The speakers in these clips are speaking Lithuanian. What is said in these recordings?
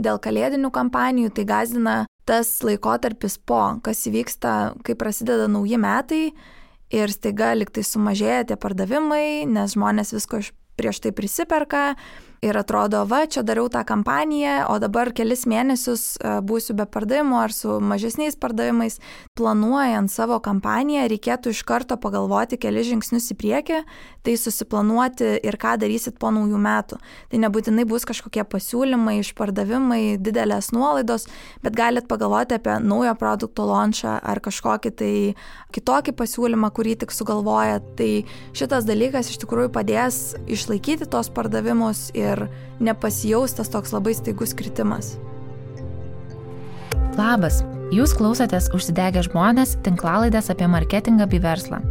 dėl kalėdinių kampanijų tai gąsdina tas laikotarpis kas įvyksta, kai prasideda nauji metai ir staiga liktai sumažėja tie pardavimai, nes žmonės visko prieš tai prisiperka ir atrodo, čia dariau tą kampaniją, o dabar kelis mėnesius būsiu be pardavimų ar su mažesniais pardavimais. Planuojant savo kampaniją reikėtų iš karto pagalvoti kelis žingsnius į priekį, tai susiplanuoti ir ką darysit po naujų metų. Tai nebūtinai bus kažkokie pasiūlymai, išpardavimai, didelės nuolaidos, bet galit pagalvoti apie naujo produkto launchą ar kažkokį tai kitokį pasiūlymą, kurį tik sugalvoja. Tai šitas dalykas iš tikrųjų padės išlaikyti tos pardavimus ir nepasijaustas toks labai staigus kritimas. Labas, jūs klausotės Užsidegę žmonės tinklalaidės apie marketingą bei verslą.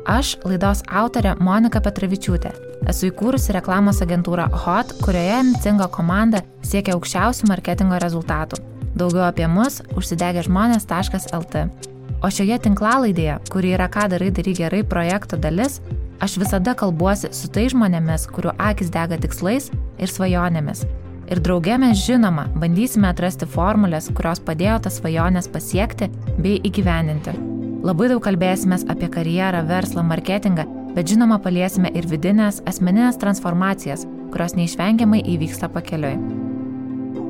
Aš laidos autorė Monika Petravičiūtė. Esu įkūrusi reklamos agentūrą HOT, kurioje ambicinga komanda siekia aukščiausių marketingo rezultatų. Daugiau apie mus užsidegęžmonės.lt. O šioje tinklalaidėje, kuri yra Ką darai gerai projekto dalis, aš visada kalbuosi su tai žmonėmis, kurių akys dega tikslais ir svajonėmis. Ir drauge mes žinoma bandysime atrasti formulės, kurios padėjo tas svajonės pasiekti bei įgyvendinti. Labai daug kalbėsimės apie karjerą, verslą, marketingą, bet žinoma paliesime ir vidinės, asmeninės transformacijas, kurios neišvengiamai įvyksta pakeliui.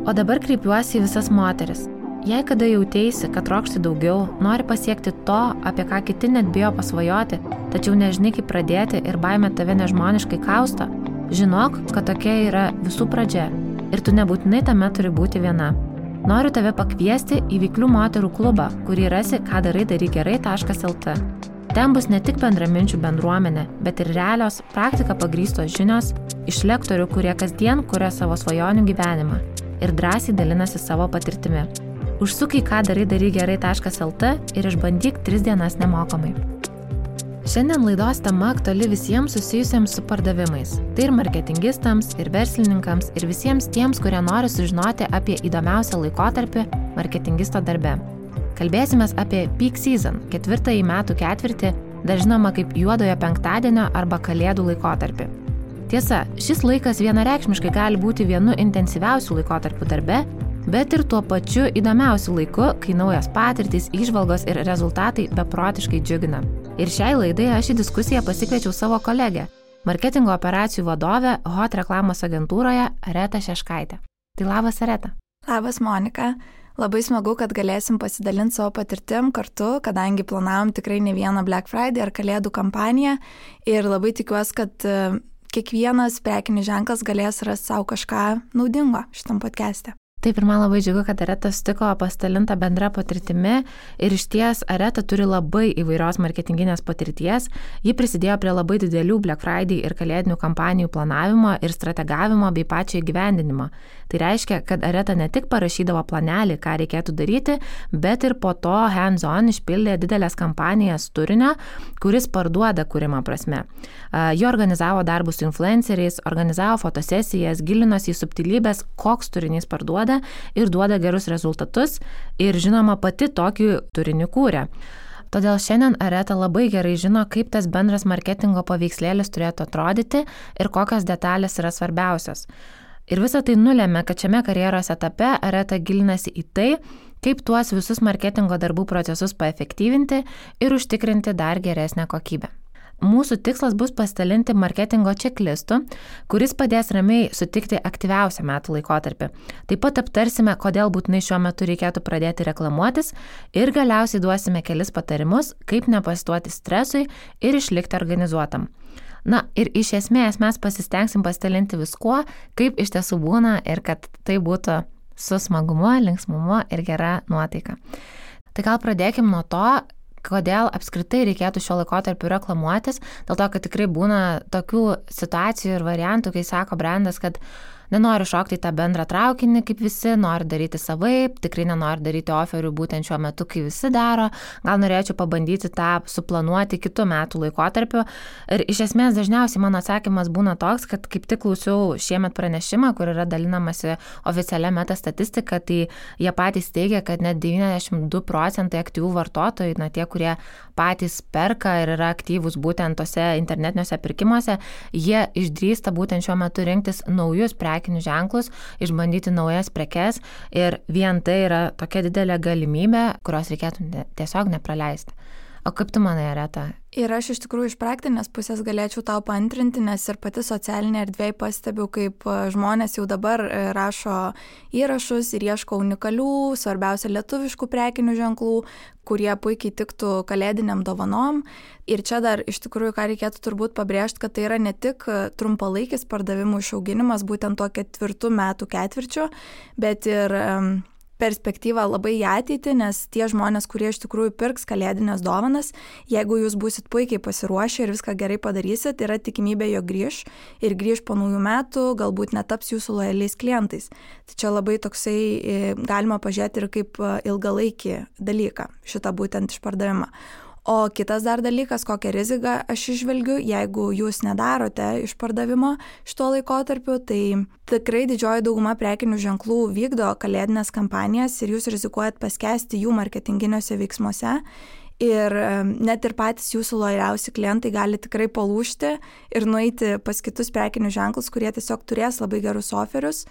O dabar kreipiuosi į visas moteris. Jei kada jauteisi, kad trokšti daugiau, nori pasiekti to, apie ką kiti net bijo pasvajoti, tačiau nežinai kaip pradėti ir baimė tave nežmoniškai kausto, žinok, kad tokia yra visų pradžia ir tu nebūtinai tame turi būti viena. Noriu tave pakviesti į Veiklių moterų klubą, kurį rasi kadarai-gerai.lt. Ten bus ne tik bendraminčių bendruomenė, bet ir realios, praktika pagrįstos žinios iš lektorių, kurie kasdien kuria savo svajonių gyvenimą ir drąsiai dalinasi savo patirtimi. Užsuk į kadarai-gerai.lt ir išbandyk 3 dienas nemokamai. Šiandien laidos tema aktuali visiems susijusiems su pardavimais. Tai ir marketingistams, ir verslininkams, ir visiems tiems, kurie nori sužinoti apie įdomiausią laikotarpį marketingisto darbe. Kalbėsimės apie peak season, 4. metų ketvirtį, dar žinoma kaip juodojo penktadienio arba kalėdų laikotarpį. Tiesa, šis laikas vienareikšmiškai gali būti vienu intensyviausių laikotarpių darbe, bet ir tuo pačiu įdomiausiu laiku, kai naujos patirtys, įžvalgos ir rezultatai beprotiškai džiugina. Ir šiai laidai aš į diskusiją pasikviečiau savo kolegę, marketingo operacijų vadovę HOT reklamos agentūroje Aretą Šeškaitę. Tai labas, Areta. Labas, Monika. Labai smagu, kad galėsim pasidalinti savo patirtim kartu, kadangi planavom tikrai ne vieną Black Friday ar kalėdų kampaniją ir labai tikiuosi, kad kiekvienas prekinis ženklas galės rasti savo kažką naudingo šitam podcast'e. Taip, ir man labai džiugu, kad Areta sutiko pasidalintą bendrą patirtimi ir išties Areta turi labai įvairios marketinginės patirties. Ji prisidėjo prie labai didelių Black Friday ir kalėdinių kampanijų planavimo ir strategavimo bei pačio įgyvendinimo. Tai reiškia, kad Areta ne tik parašydavo planelį, ką reikėtų daryti, bet ir po to hands-on išpildė didelės kampanijas turinio, kuris parduoda kūrimo prasme. Ji organizavo darbus su influenceriais, organizavo fotosesijas, gilinosi į subtilybės, koks turinys parduoda ir duoda gerus rezultatus ir žinoma pati tokį turinį kūrė. Todėl šiandien Areta labai gerai žino, kaip tas bendras marketingo paveikslėlis turėtų atrodyti ir kokios detalės yra svarbiausios. Ir visa tai nulėmė, kad šiame karjeros etape Areta gilinasi į tai, kaip tuos visus marketingo darbų procesus paefektyvinti ir užtikrinti dar geresnę kokybę. Mūsų tikslas bus pasidalinti marketingo checklistu, kuris padės ramiai sutikti aktyviausią metų laikotarpį. Taip pat aptarsime, kodėl būtinai šiuo metu reikėtų pradėti reklamuotis ir galiausiai duosime kelis patarimus, kaip nepasiduoti stresui ir išlikti organizuotam. Na ir iš esmės mes pasistengsim pasidalinti viskuo, kaip iš tiesų būna ir kad tai būtų su smagumu, linksmumu ir gera nuotaika. Tai gal pradėkim nuo to, kodėl apskritai reikėtų šio laikotarpiu reklamuotis, dėl to, kad tikrai būna tokių situacijų ir variantų, kai sako brandas, kad nenori šokti į tą bendrą traukinį, kaip visi, nori daryti savaip, tikrai nenori daryti oferių būtent šiuo metu, kai visi daro, gal norėčiau pabandyti tą suplanuoti kitų metų laikotarpiu. Ir iš esmės dažniausiai mano atsakymas būna toks, kad kaip tik klausiau šiemet pranešimą, kur yra dalinamasi oficialia meta statistika, tai jie patys teigia, kad net 92% aktyvių vartotojų, tie, kurie patys perka ir yra aktyvūs būtent tose internetiniuose pirkimuose, jie išdrįsta būtent šiuo metu rinktis naujus prekinius prekinius ženklus, išbandyti naujas prekes ir vien tai yra tokia didelė galimybė, kurios reikėtų tiesiog nepraleisti. O kaip tu manai, Areta? Ir aš iš tikrųjų iš praktinės pusės galėčiau tau paantrinti, nes ir pati socialinė erdvėje pastebiu, kaip žmonės jau dabar rašo įrašus ir ieško unikalių, svarbiausia lietuviškų prekinių ženklų, kurie puikiai tiktų kalėdiniam dovanom. Ir čia dar iš tikrųjų, ką reikėtų turbūt pabrėžti, kad tai yra ne tik trumpalaikis pardavimų išauginimas, būtent tuo 4 metų ketvirčiu, bet ir perspektyva labai į ateitį, nes tie žmonės, kurie iš tikrųjų pirks kalėdinės dovanas, jeigu jūs būsit puikiai pasiruošę ir viską gerai padarysit, yra tikimybė, jog grįš po naujų metų, galbūt netaps jūsų lojaliais klientais. Tai čia labai toksai galima pažiūrėti ir kaip ilgalaikį dalyką, šitą būtent išpardavimą. O kitas dar dalykas, kokią riziką aš išvelgiu, jeigu jūs nedarote išpardavimo šituo laikotarpiu, tai tikrai didžioji dauguma prekinių ženklų vykdo kalėdinės kampanijas ir jūs rizikuojat paskesti jų marketinginiuose veiksmuose. Ir net ir patys jūsų lojaliausi klientai gali tikrai palūžti ir nueiti pas kitus prekinius ženklus, kurie tiesiog turės labai gerus oferius.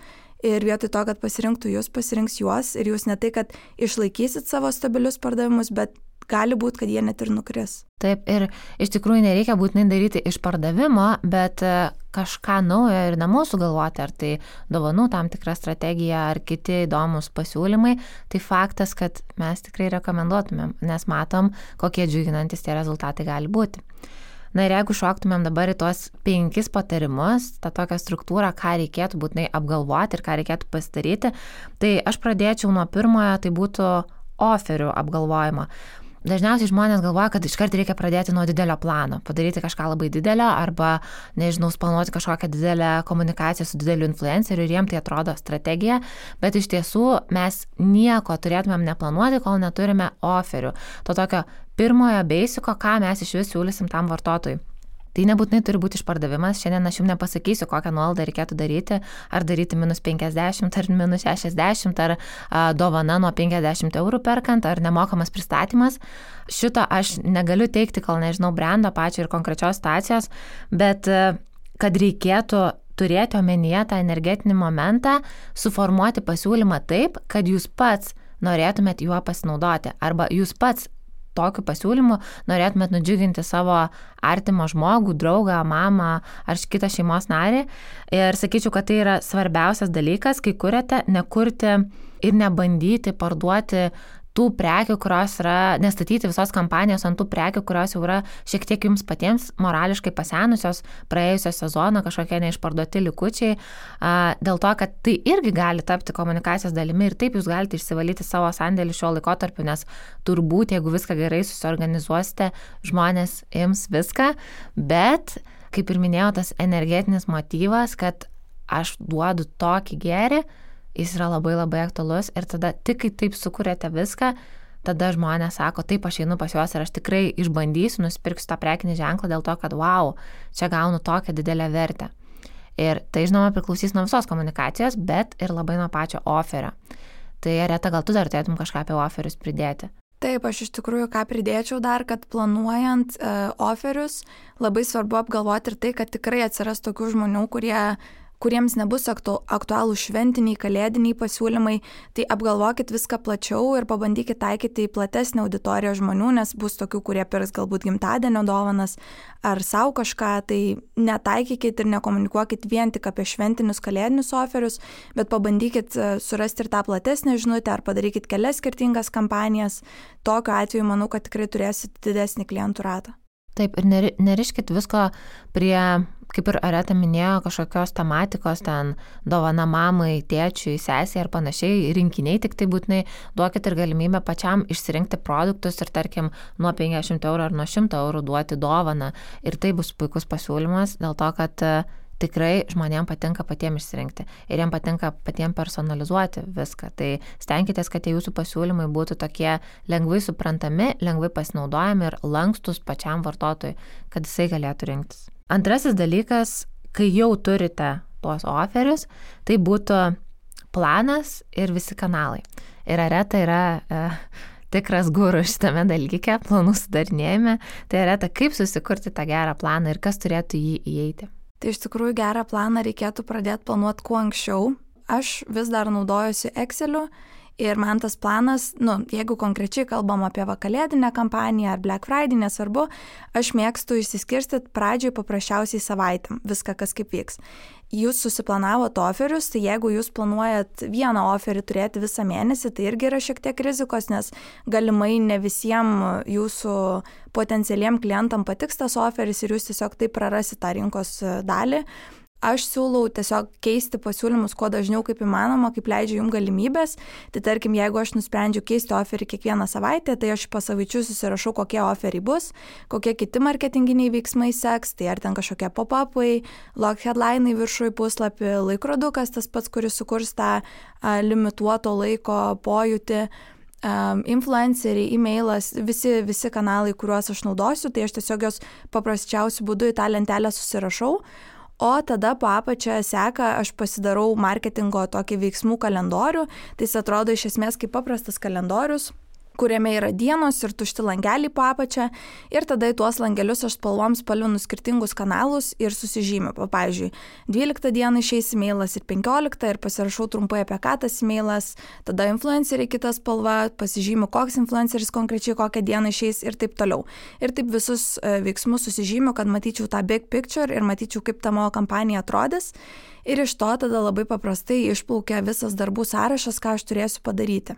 Ir vietoj to, kad pasirinktų jūs, pasirinks juos ir jūs ne tai, kad išlaikysit savo stabilius pardavimus, bet gali būti, kad jie net ir nukris. Taip, ir iš tikrųjų nereikia būtinai daryti išpardavimo, bet kažką naujo ir namų sugalvoti, ar tai dovanų tam tikra strategija, ar kiti įdomus pasiūlymai, tai faktas, kad mes tikrai rekomenduotumėm, nes matom, kokie džiuginantis tie rezultatai gali būti. Na ir jeigu šoktumėm dabar į tuos 5 patarimus, tą tokią struktūrą, ką reikėtų būtinai apgalvoti ir ką reikėtų pasidaryti, tai aš pradėčiau nuo pirmojo, tai būtų oferių apgalvojimo. Dažniausiai žmonės galvoja, kad iškart reikia pradėti nuo didelio plano, padaryti kažką labai didelio arba, nežinau, planuoti kažkokią didelę komunikaciją su dideliu influenceriu ir jiem tai atrodo strategija, bet iš tiesų mes nieko turėtumėm neplanuoti, kol neturime oferių. To tokio pirmojo basiko, ką mes iš vis siūlysim tam vartotojui. Tai nebūtinai turi būti išpardavimas, šiandien aš jums nepasakysiu, kokią nuolaidą reikėtų daryti, ar daryti -50, ar -60, ar dovana nuo 50 eurų perkant, ar nemokamas pristatymas. Šito aš negaliu teikti, kol nežinau brendo pačio ir konkrečios situacijos, bet kad reikėtų turėti omenyje tą energetinį momentą, suformuoti pasiūlymą taip, kad jūs pats norėtumėt juo pasinaudoti, arba jūs pats tokiu pasiūlymu norėtumėt nudžiuginti savo artimą žmogų, draugą, mamą ar kitą šeimos narį. Ir sakyčiau, kad tai yra svarbiausias dalykas, kai kuriate, nekurti ir nebandyti parduoti tų prekių, kurios yra, nestatyti visos kampanijos ant tų prekių, kurios jau yra šiek tiek jums patiems morališkai pasenusios, praėjusio sezono kažkokie neišparduoti likučiai, dėl to, kad tai irgi gali tapti komunikacijos dalimi ir taip jūs galite išsivalyti savo sandėlį šiuo laikotarpiu, nes turbūt, jeigu viską gerai susiorganizuosite, žmonės ims viską, bet, kaip ir minėjau, tas energetinis motyvas, kad aš duodu tokį gėrį, jis yra labai labai aktualus ir tada tik kai taip sukuriate viską, tada žmonės sako, taip aš einu pas juos ir aš tikrai išbandysiu, nusipirksiu tą prekinį ženklą dėl to, kad wow, čia gaunu tokią didelę vertę. Ir tai žinoma priklausys nuo visos komunikacijos, bet ir labai nuo pačio oferio. Tai Areta, gal tu dar turėtum kažką apie oferius pridėti? Taip, aš iš tikrųjų ką pridėčiau dar, kad planuojant oferius labai svarbu apgalvoti ir tai, kad tikrai atsiras tokių žmonių, kuriems nebus aktualų šventiniai, kalėdiniai pasiūlymai, tai apgalvokit viską plačiau ir pabandykit taikyti į platesnę auditoriją žmonių, nes bus tokių, kurie pirks galbūt gimtadienio dovanas ar savo kažką, tai netaikykit ir nekomunikuokit vien tik apie šventinius kalėdinius oferius, bet pabandykit surasti ir tą platesnę žinutę ar padarykit kelias skirtingas kampanijas. Tokiu atveju manau, kad tikrai turėsit didesnį klientų ratą. Taip, ir neriškit visko prie, kaip ir Areta minėjo, kažkokios tematikos, ten dovana mamai, tėčiui, sesiai ar panašiai, rinkiniai, tik tai būtinai duokit ir galimybę pačiam išsirinkti produktus ir tarkim nuo 50 eurų ar nuo 100 eurų duoti dovaną. Ir tai bus puikus pasiūlymas dėl to, kad tikrai žmonėms patinka patiems išsirinkti ir jiems patinka patiems personalizuoti viską. Tai stenkitės, kad tie jūsų pasiūlymai būtų tokie lengvai suprantami, lengvai pasinaudojami ir lankstus pačiam vartotojui, kad jisai galėtų rinktis. Antrasis dalykas, kai jau turite tuos oferius, tai būtų planas ir visi kanalai. Ir Areta yra tikras guru šitame dalyke, planų sudarinėjime. Tai Areta, kaip susikurti tą gerą planą ir kas turėtų jį įeiti? Tai iš tikrųjų gerą planą reikėtų pradėti planuoti kuo anksčiau. Aš vis dar naudojuosi Exceliu ir man tas planas, jeigu konkrečiai kalbam apie kalėdinę kampaniją ar Black Friday, nesvarbu, aš mėgstu išsiskirstyti pradžioj paprasčiausiai savaitėm, viską kas kaip vyks. Jūs susiplanavot oferius, tai jeigu jūs planuojat vieną oferį turėti visą mėnesį, tai irgi yra šiek tiek rizikos, nes galimai ne visiems jūsų potencialiem klientam patiks tas oferis ir jūs tiesiog taip prarasit tą rinkos dalį. Aš siūlau tiesiog keisti pasiūlymus kuo dažniau kaip įmanoma, kaip leidžia jums galimybės. Tai tarkim, jeigu aš nusprendžiu keisti oferį kiekvieną savaitę, tai aš pasavaičiu susirašau, kokie oferiai bus, kokie kiti marketinginiai veiksmai seks, tai ar ten kažkokie pop-upai, log headline'ai viršui puslapį, laikrodukas tas pats, kuris sukurs tą limituoto laiko pojūtį, influenceriai, e-mailas, visi kanalai, kuriuos aš naudosiu, tai aš tiesiog jos paprasčiausiu būdu į tą lentelę susirašau. O tada po apačią seka, aš pasidarau marketingo tokį veiksmų kalendorių, tai jis atrodo iš esmės kaip paprastas kalendorius, kuriame yra dienos ir tušti langeliai po apačią ir tada į tuos langelius aš spalvinu skirtingus kanalus ir susižymiu. Pavyzdžiui, 12 dieną išeis e-mailas ir 15 ir pasirašau trumpai apie ką tas e-mailas, tada influenceriai kita spalva, pasižymiu, koks influenceris konkrečiai kokią dieną išeis ir taip toliau. Ir taip visus veiksmus susižymiu, kad matyčiau tą big picture ir matyčiau, kaip ta mano kampanija atrodys. Ir iš to tada labai paprastai išplaukia visas darbų sąrašas, ką aš turėsiu padaryti.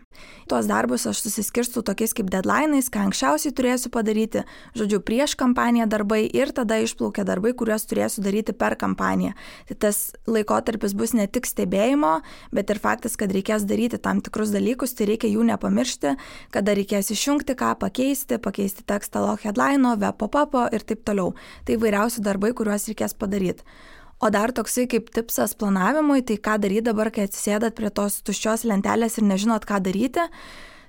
Tuos darbus aš susiskirstu tokiais kaip deadline'ais, ką anksčiausiai turėsiu padaryti, žodžiu, prieš kampaniją darbai ir tada išplaukia darbai, kuriuos turėsiu daryti per kampaniją. Tai tas laikotarpis bus ne tik stebėjimo, bet ir faktas, kad reikės daryti tam tikrus dalykus, tai reikia jų nepamiršti, kada reikės išjungti ką, pakeisti tekstą log headline'o, web pop-up'o ir taip toliau. Tai įvairiausi darbai, kuriuos reikės padaryti. O dar toksai kaip tipsas planavimui, tai ką daryti dabar, kai atsisėdat prie tos tuščios lentelės ir nežinot, ką daryti.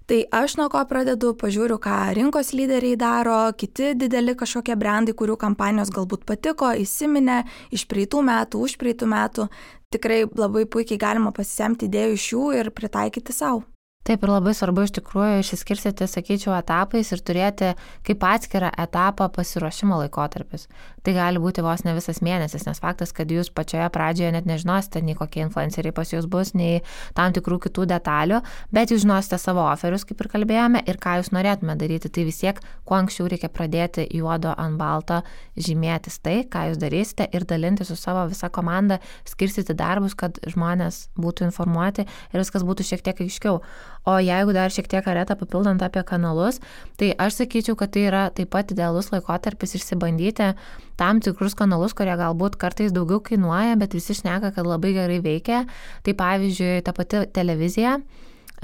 Tai aš nuo ko pradedu, pažiūriu, ką rinkos lyderiai daro, kiti dideli kažkokie brandai, kurių kampanijos galbūt patiko, įsiminė iš praeitų metų, už praeitų metų. Tikrai labai puikiai galima pasisemti idėjų iš jų ir pritaikyti savo. Taip, ir labai svarbu iš tikrųjų išsiskirstyti, sakyčiau, etapais ir turėti kaip atskirą etapą pasiruošimo laikotarpis. Tai gali būti vos ne visas mėnesis, nes faktas, kad jūs pačioje pradžioje net nežinosite, nei kokie influenceriai pas jūs bus, nei tam tikrų kitų detalių, bet jūs žinosite savo oferius, kaip ir kalbėjome, ir ką jūs norėtume daryti. Tai vis tiek, kuo anksčiau reikia pradėti juodo ant balto žymėtis tai, ką jūs darysite ir dalinti su savo visa komanda, skirstyti darbus, kad žmonės būtų informuoti ir viskas būtų šiek tiek aiškiau. O jeigu dar šiek tiek Aretą papildant apie kanalus, tai aš sakyčiau, kad tai yra taip pat idealus laikotarpis išsibandyti tam tikrus kanalus, kurie galbūt kartais daugiau kainuoja, bet visi šneka, kad labai gerai veikia. Tai pavyzdžiui, ta pati televizija.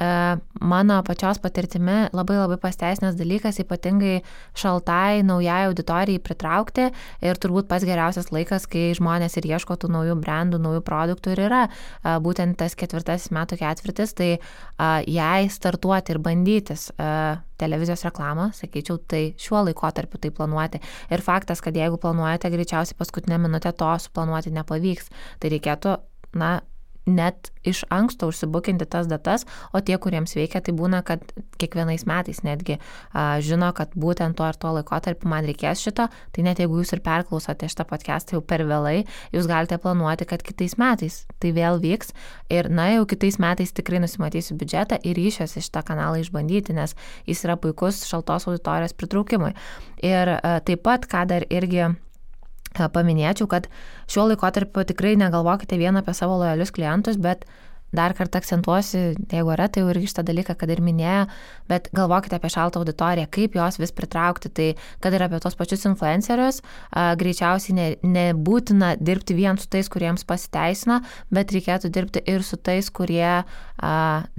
Mano pačios patirtimi labai pasiteisinęs dalykas, ypatingai šaltai naujai auditorijai pritraukti ir turbūt pats geriausias laikas, kai žmonės ir ieško tų naujų brandų, naujų produktų ir yra būtent tas 4 metų ketvirtis, tai jei startuoti ir bandytis televizijos reklamą, sakyčiau, tai šiuo laikotarpiu tai planuoti. Ir faktas, kad jeigu planuojate, greičiausiai paskutinę minutę to suplanuoti nepavyks, tai reikėtų, net iš anksto užsibukinti tas datas, o tie, kuriems veikia, tai būna, kad kiekvienais metais netgi žino, kad būtent to ir to laikotarpiu man reikės šito, tai net jeigu jūs ir perklausote šitą podcastą jau per vėlai, jūs galite planuoti, kad kitais metais tai vėl vyks ir jau kitais metais tikrai nusimatysiu biudžetą ir ryšiuosi šitą kanalą išbandyti, nes jis yra puikus šaltos auditorijos pritraukimui. Ir taip pat, ką dar irgi paminėčiau, kad šiuo laikotarpiu tikrai negalvokite vien apie savo lojalius klientus, bet dar kartą akcentuosiu, jeigu yra, tai jau irgi šitą dalyką, kad ir minėjo, bet galvokite apie šaltą auditoriją, kaip jos vis pritraukti, tai kad ir apie tos pačius influencerius, greičiausiai nebūtina dirbti vien su tais, kuriems pasiteisina, bet reikėtų dirbti ir su tais, kurie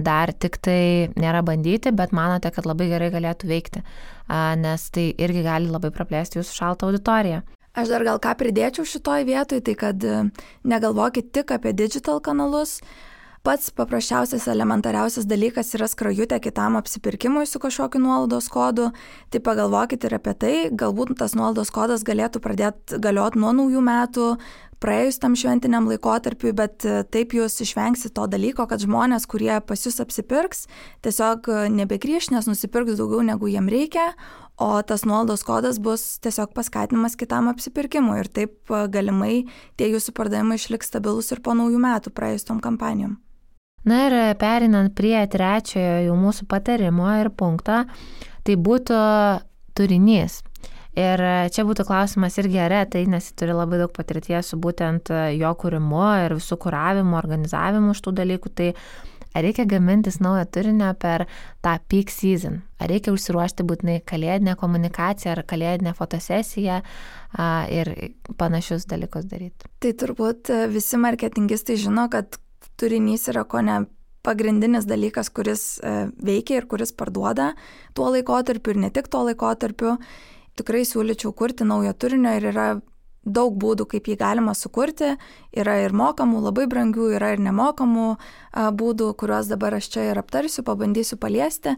dar tik tai nėra bandyti, bet manote, kad labai gerai galėtų veikti, nes tai irgi gali labai praplėsti jūsų šaltą auditoriją. Aš dar gal ką pridėčiau šitoj vietoj, tai kad negalvokit tik apie digital kanalus. Pats paprasčiausias, elementariausias dalykas yra skrajutė kitam apsipirkimui su kažkokiu nuolaidos kodu. Tai pagalvokit ir apie tai, galbūt tas nuolaidos kodas galėtų pradėti galioti nuo naujų metų, praėjus tam šventiniam laikotarpiui, bet taip jūs išvengsit to dalyko, kad žmonės, kurie pas jūs apsipirks, tiesiog nebegrįš, nes nusipirks daugiau negu jiem reikia, o tas nuolaidos kodas bus tiesiog paskatinimas kitam apsipirkimui ir taip galimai tie jūsų pardavimai išliks stabilus ir po naujų metų praėjus tom kampanijom. Na ir perinant prie trečiojo jau mūsų patarimo ir punkto, tai būtų turinys. Ir čia būtų klausimas irgi Aretai, nes jis turi labai daug patirties su būtent jo kūrimu ir visų kuravimu, organizavimu šitų dalykų. Tai ar reikia gamintis naują turinio per tą peak season? Ar reikia užsiruošti būtinai kalėdinę komunikaciją ar kalėdinę fotosesiją ir panašius dalykus daryti? Tai turbūt visi marketingistai žino, kad turinys yra kone pagrindinis dalykas, kuris veikia ir kuris parduoda tuo laikotarpiu ir ne tik tuo laikotarpiu. Tikrai siūlyčiau kurti naujo turinio ir yra daug būdų, kaip jį galima sukurti. Yra ir mokamų, labai brangių, yra ir nemokamų būdų, kuriuos dabar aš čia ir aptarsiu, pabandysiu paliesti.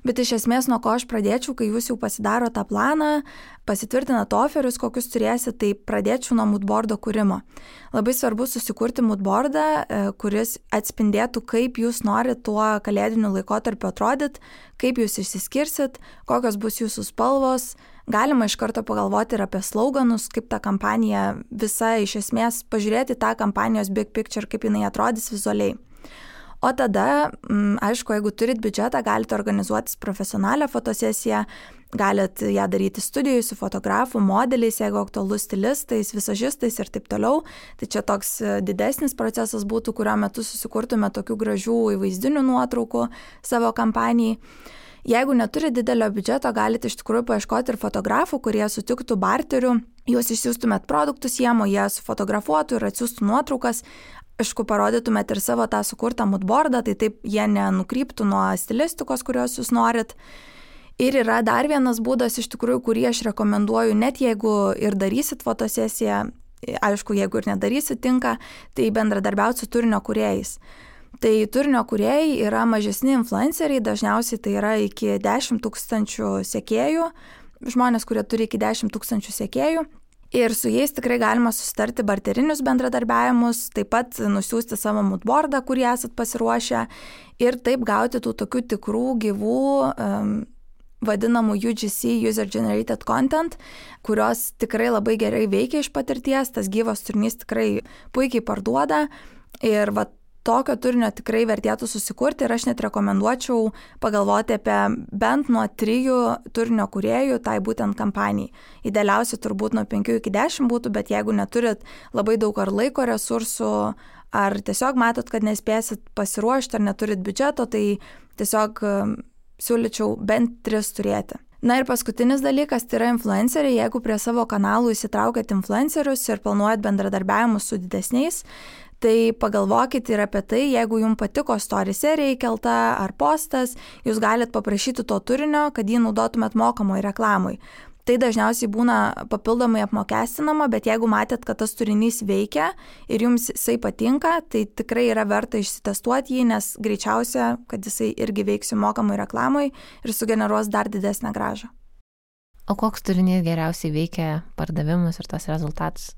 Bet iš esmės, nuo ko aš pradėčiau, kai jūs jau pasidaro tą planą, pasitvirtinat oferius, kokius turėsit, tai pradėčiau nuo moodboardo kūrimo. Labai svarbu susikurti moodboardą, kuris atspindėtų, kaip jūs norit tuo kalėdiniu laikotarpiu atrodyt, kaip jūs išsiskirsit, kokios bus jūsų spalvos. Galima iš karto pagalvoti ir apie sloganus, kaip ta kampanija visa iš esmės, pažiūrėti tą kampanijos big picture, kaip jinai atrodys vizualiai. O tada, aišku, jeigu turit biudžetą, galite organizuotis profesionalią fotosesiją, galite ją daryti studijoj su fotografu, modeliais, jeigu aktualu stilistais, visažistais ir taip toliau. Tai čia toks didesnis procesas būtų, kurio metu susikurtume tokių gražių įvaizdinių nuotraukų savo kampanijai. Jeigu neturi didelio biudžeto, galite iš tikrųjų paieškoti ir fotografų, kurie sutiktų barterių, jūs išsiųstumėt produktus jiem, o jie sufotografuotų ir atsiųstų nuotraukas. Aišku, parodytumėt ir savo tą sukurtą moodboardą, tai taip jie nenukryptų nuo stilistikos, kurios jūs norit. Ir yra dar vienas būdas, iš tikrųjų, kurį aš rekomenduoju, net jeigu ir darysit fotosesiją, aišku, jeigu ir nedarysit tinka, tai bendradarbiauti su turinio kūrėjais. Tai turinio kūrėjai yra mažesni influenceriai, dažniausiai tai yra iki 10 000 sekėjų, žmonės, kurie turi iki 10 000 sekėjų. Ir su jais tikrai galima susitarti barterinius bendradarbiavimus, taip pat nusiųsti savo moodboardą, kurį esat pasiruošę ir taip gauti tų tokių tikrų gyvų vadinamų UGC, User Generated Content, kurios tikrai labai gerai veikia iš patirties, tas gyvas turinys tikrai puikiai parduoda ir tokio turinio tikrai vertėtų susikurti ir aš net rekomenduočiau pagalvoti apie bent nuo 3 turinio kūrėjų tai būtent kampanijai. Idealiausia turbūt nuo 5 iki 10 būtų, bet jeigu neturit labai daug ar laiko resursų, ar tiesiog matot, kad nespėsit pasiruošti, ar neturit biudžeto, tai tiesiog siūlyčiau bent 3 turėti. Na ir paskutinis dalykas, tai yra influenceriai. Jeigu prie savo kanalų įsitraukiat influencerius ir planuojat bendradarbiavimus su didesniais, tai pagalvokit ir apie tai, jeigu jums patiko story serija įkelta ar postas, jūs galite paprašyti to turinio, kad jį naudotumėt mokamai reklamai. Tai dažniausiai būna papildomai apmokestinama, bet jeigu matėt, kad tas turinys veikia ir jums jisai patinka, tai tikrai yra verta išsitestuoti jį, nes greičiausia, kad jisai irgi veiks mokamai reklamai ir sugeneruos dar didesnę grąžą. O koks turinys geriausiai veikia pardavimus ir tas rezultatus?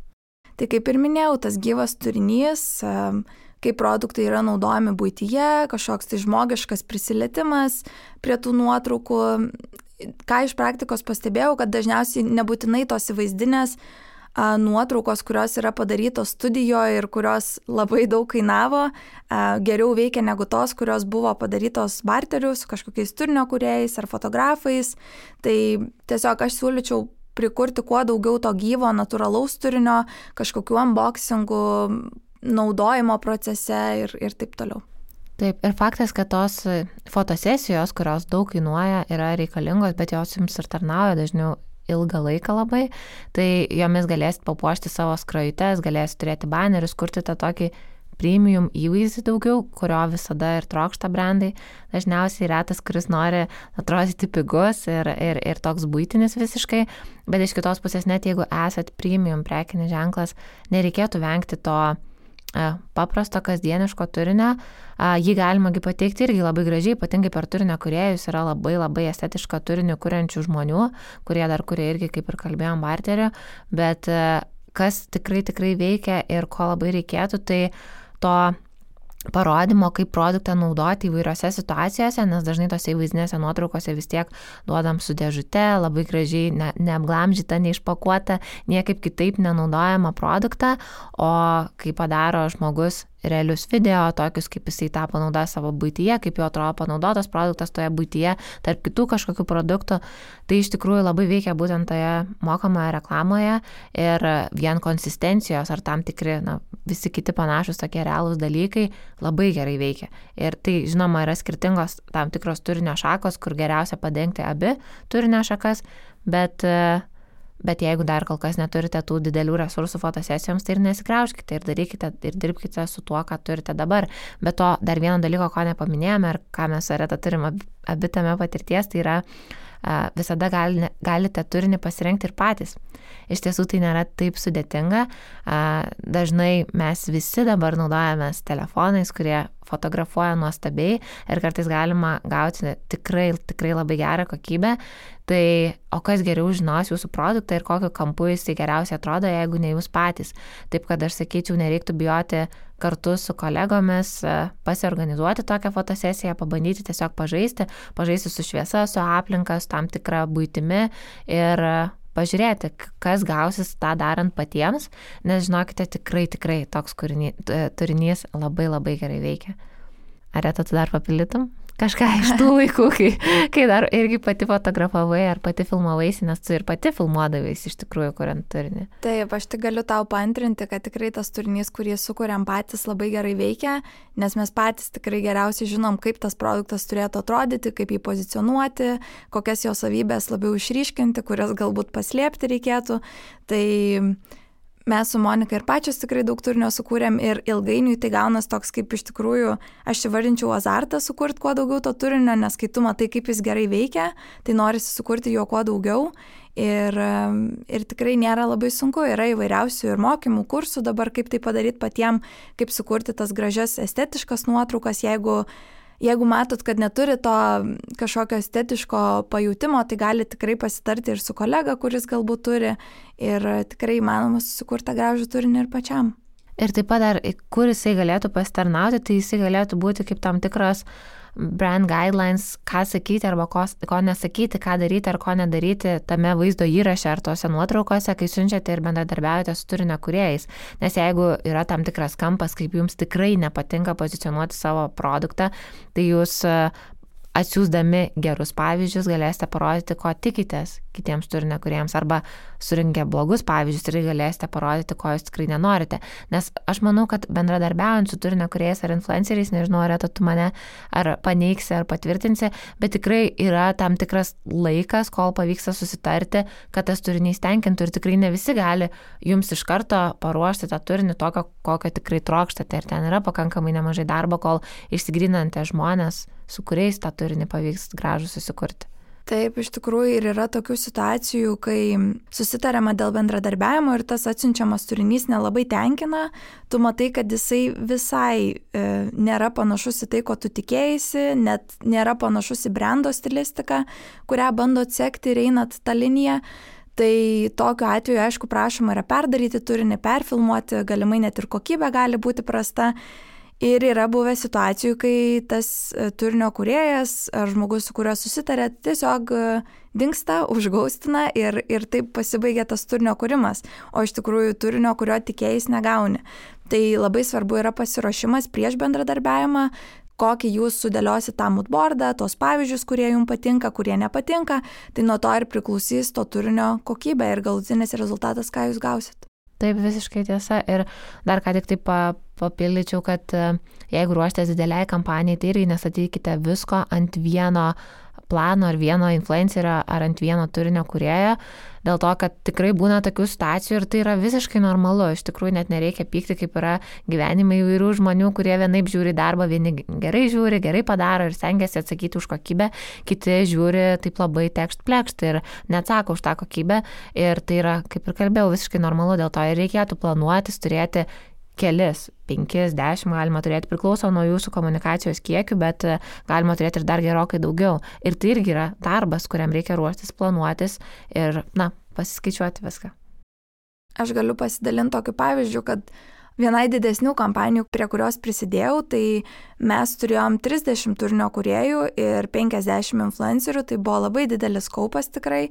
Tai kaip ir minėjau, tas gyvas turinys, kaip produktai yra naudojami buityje, kažkoks tai žmogiškas prisilietimas prie tų nuotraukų. Ką iš praktikos pastebėjau, kad dažniausiai nebūtinai tos įvaizdinės nuotraukos, kurios yra padarytos studijoje ir kurios labai daug kainavo, geriau veikia negu tos, kurios buvo padarytos barteriu su kažkokiais turinio kūrėjais ar fotografais. Tai tiesiog aš siūlyčiau prikurti kuo daugiau to gyvo, natūralaus turinio, kažkokių unboxingų, naudojimo procese ir taip toliau. Taip, ir faktas, kad tos fotosesijos, kurios daug kainuoja, yra reikalingos, bet jos jums ir tarnauja dažniau ilgą laiką labai, tai jomis galėsit papuošti savo skrajutes, galėsit turėti banerius, kurti tą tokį premium įvaizdį daugiau, kurio visada ir trokšta brandai. Dažniausiai retas, kuris nori atrodyti pigus ir toks buitinis visiškai, bet iš kitos pusės net jeigu esat premium prekinis ženklas, nereikėtų vengti to paprasto kasdieniško turinio. Jį galima pateikti irgi labai gražiai, ypatingai per turinio kūrėjus yra labai labai estetišką turinį kuriančių žmonių, kurie dar kuria irgi, kaip ir kalbėjom, barteriu, bet kas tikrai veikia ir ko labai reikėtų, tai to parodymo, kaip produktą naudoti įvairiose situacijose, nes dažnai tose įvaizdinėse nuotraukose vis tiek duodam su dėžute, labai gražiai neapglamžyta, neišpakuota, niekaip kitaip nenaudojama produktą, o kai padaro žmogus realius video, tokius kaip jisai tą panaudoja savo buityje, kaip jo atrodo panaudotas produktas toje buityje, tarp kitų kažkokių produktų, tai iš tikrųjų labai veikia būtent toje mokamoje reklamoje ir vien konsistencijos ar tam tikri, visi kiti panašus tokie realūs dalykai labai gerai veikia. Ir tai, žinoma, yra skirtingos tam tikros turinio šakos, kur geriausia padengti abi turinio šakas, bet jeigu dar kol kas neturite tų didelių resursų fotosesijoms, tai ir nesikrauškite ir darykite ir dirbkite su tuo, ką turite dabar. Bet to dar vieno dalyko, ko nepaminėjome ir ką mes su Areta turime abi tame patirties, tai yra visada galite turinį pasirinkti ir patys. Iš tiesų tai nėra taip sudėtinga. Dažnai mes visi dabar naudojamės telefonais, kurie fotografuoja nuostabiai ir kartais galima gauti tikrai labai gerą kokybę. Tai o kas geriau žinos jūsų produktą ir kokiu kampu jisai geriausiai atrodo, jeigu ne jūs patys. Taip kad aš sakyčiau, nereiktų bijoti kartu su kolegomis pasiorganizuoti tokią fotosesiją, pabandyti tiesiog pažaisti su šviesa, su aplinka, su tam tikra buitimi ir pažiūrėti, kas gausis tą darant patiems, nes žinokite, tikrai toks turinys labai gerai veikia. Areta, tu dar papildytum? Kažką iš tų laikų, kai dar irgi pati fotografavai ar pati filmavaisi, nes tu ir pati filmuodavais iš tikrųjų, kuriant turinį. Taip, aš tik galiu tau paantrinti, kad tikrai tas turinys, kurį sukuriam patys, labai gerai veikia, nes mes patys tikrai geriausiai žinom, kaip tas produktas turėtų atrodyti, kaip jį pozicionuoti, kokias jo savybės labiau išryškinti, kurias galbūt paslėpti reikėtų. Tai mes su Monika ir pačios tikrai daug turinio sukūrėm ir ilgainiui tai gaunas toks kaip iš tikrųjų, aš įvardinčiau azartą sukurti kuo daugiau to turinio, nes kai tu matai, kaip jis gerai veikia, tai norisi sukurti jo kuo daugiau ir tikrai nėra labai sunku, yra įvairiausių ir mokymų, kursų dabar, kaip tai padaryti patiem, kaip sukurti tas gražias estetiškas nuotraukas, jeigu matot, kad neturi to kažkokio estetiško pajutimo, tai gali tikrai pasitarti ir su kolega, kuris galbūt turi ir tikrai įmanoma susikurti gražų turinį ir pačiam. Ir taip pat dar, kur jisai galėtų pasitarnauti, tai jisai galėtų būti kaip tam tikros brand guidelines, ką sakyti arba ko nesakyti, ką daryti ar ko nedaryti tame vaizdo įraše ar tose nuotraukose, kai siunčiate ir bendradarbiaujate su turinio kūrėjais. Nes jeigu yra tam tikras kampas, kaip jums tikrai nepatinka pozicionuoti savo produktą, tai jūs atsiųsdami gerus pavyzdžius galėsite parodyti, ko tikitės kitiems turinio kūrėjams, arba surinkę blogus pavyzdžius ir galėsite parodyti, ko jūs tikrai nenorite. Nes aš manau, kad bendradarbiaujant su turinio kūrėjais ar influenceriais, nežinau, Areta, tu mane ar paneigsi, ar patvirtinsi, bet tikrai yra tam tikras laikas, kol pavyksta susitarti, kad tas turinys tenkintų ir tikrai ne visi gali jums iš karto paruošti tą turinį tokio, kokio tikrai trokštate ir ten yra pakankamai nemažai darbo, kol išsigrinate žmonės, su kuriais tą turinį pavyks gražų susikurti. Taip, iš tikrųjų ir yra tokių situacijų, kai susitariama dėl bendradarbiavimo ir tas atsiunčiamas turinys nelabai tenkina, tu matai, kad jisai visai nėra panašus į tai, ko tu tikėjaisi, net nėra panašus į brando stilistiką, kurią bandot sekti ir einat tą liniją. Tai tokiu atveju, aišku, prašoma yra perdaryti turinį, perfilmuoti, galimai net ir kokybė gali būti prasta. Ir yra buvę situacijų, kai tas turinio kūrėjas ar žmogus, su kuriuo susitarė, tiesiog dingsta, užgaustina ir taip pasibaigia tas turinio kūrimas, o iš tikrųjų turinio, kurio tikėjais negauni. Tai labai svarbu yra pasiruošimas prieš bendradarbiavimą, kokį jūs sudėliosit tą moodboardą, tos pavyzdžius, kurie jums patinka, kurie nepatinka, tai nuo to ir priklausys to turinio kokybė ir galutinis rezultatas, ką jūs gausit. Taip, visiškai tiesa. Ir dar ką tik taip papildyčiau, kad jeigu ruoštės dideliai kampanijai, tai irgi nestatykite visko ant vieno plano ar vieno influencerio ar ant vieno turinio kūrėjo, dėl to, kad tikrai būna tokių situacijų ir tai yra visiškai normalu. Iš tikrųjų net nereikia pykti, kaip yra gyvenime įvairių žmonių, kurie vienaip žiūri darbą, vieni gerai žiūri, gerai padaro ir stengiasi atsakyti už kokybę, kiti žiūri taip labai tekšt-plekšt ir neatsako už tą kokybę. Ir tai yra, kaip ir kalbėjau, visiškai normalu, dėl to ir reikėtų planuotis, turėti kelis, 5, 10 galima turėti, priklauso nuo jūsų komunikacijos kiekių, bet galima turėti ir dar gerokai daugiau. Ir tai irgi yra darbas, kuriam reikia ruoštis, planuotis ir, pasiskaičiuoti viską. Aš galiu pasidalinti tokiu pavyzdžiu, kad vienai didesnių kampanijų, prie kurios prisidėjau, tai mes turėjom 30 turinio kūrėjų ir 50 influencerių, tai buvo labai didelis kaupas tikrai.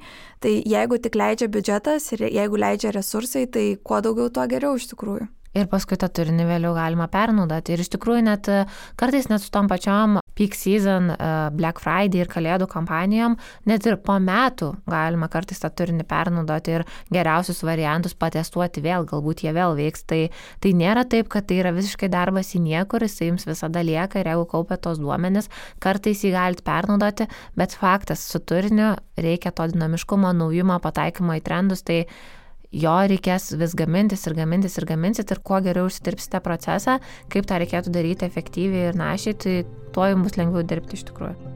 Tai jeigu tik leidžia biudžetas ir jeigu leidžia resursai, tai kuo daugiau, tuo geriau iš tikrųjų. Ir paskui tą turinį vėliau galima pernaudoti. Ir iš tikrųjų net kartais net su tom pačiom peak season, Black Friday ir kalėdų kampanijom, net ir po metų galima kartais tą turinį pernaudoti ir geriausius variantus patestuoti vėl, galbūt jie vėl veiks. Tai nėra taip, kad tai yra visiškai darbas į niekur, jis jums visada lieka ir jeigu kaupia tos duomenis, kartais jį galite pernaudoti, bet faktas, su turiniu reikia to dinamiškumo, naujumo, pataikymo į trendus, tai jo reikės vis gamintis ir kuo geriau užsidirbsite procesą, kaip tą reikėtų daryti efektyviai ir našiai, tai tuo jums bus lengviau dirbti iš tikrųjų.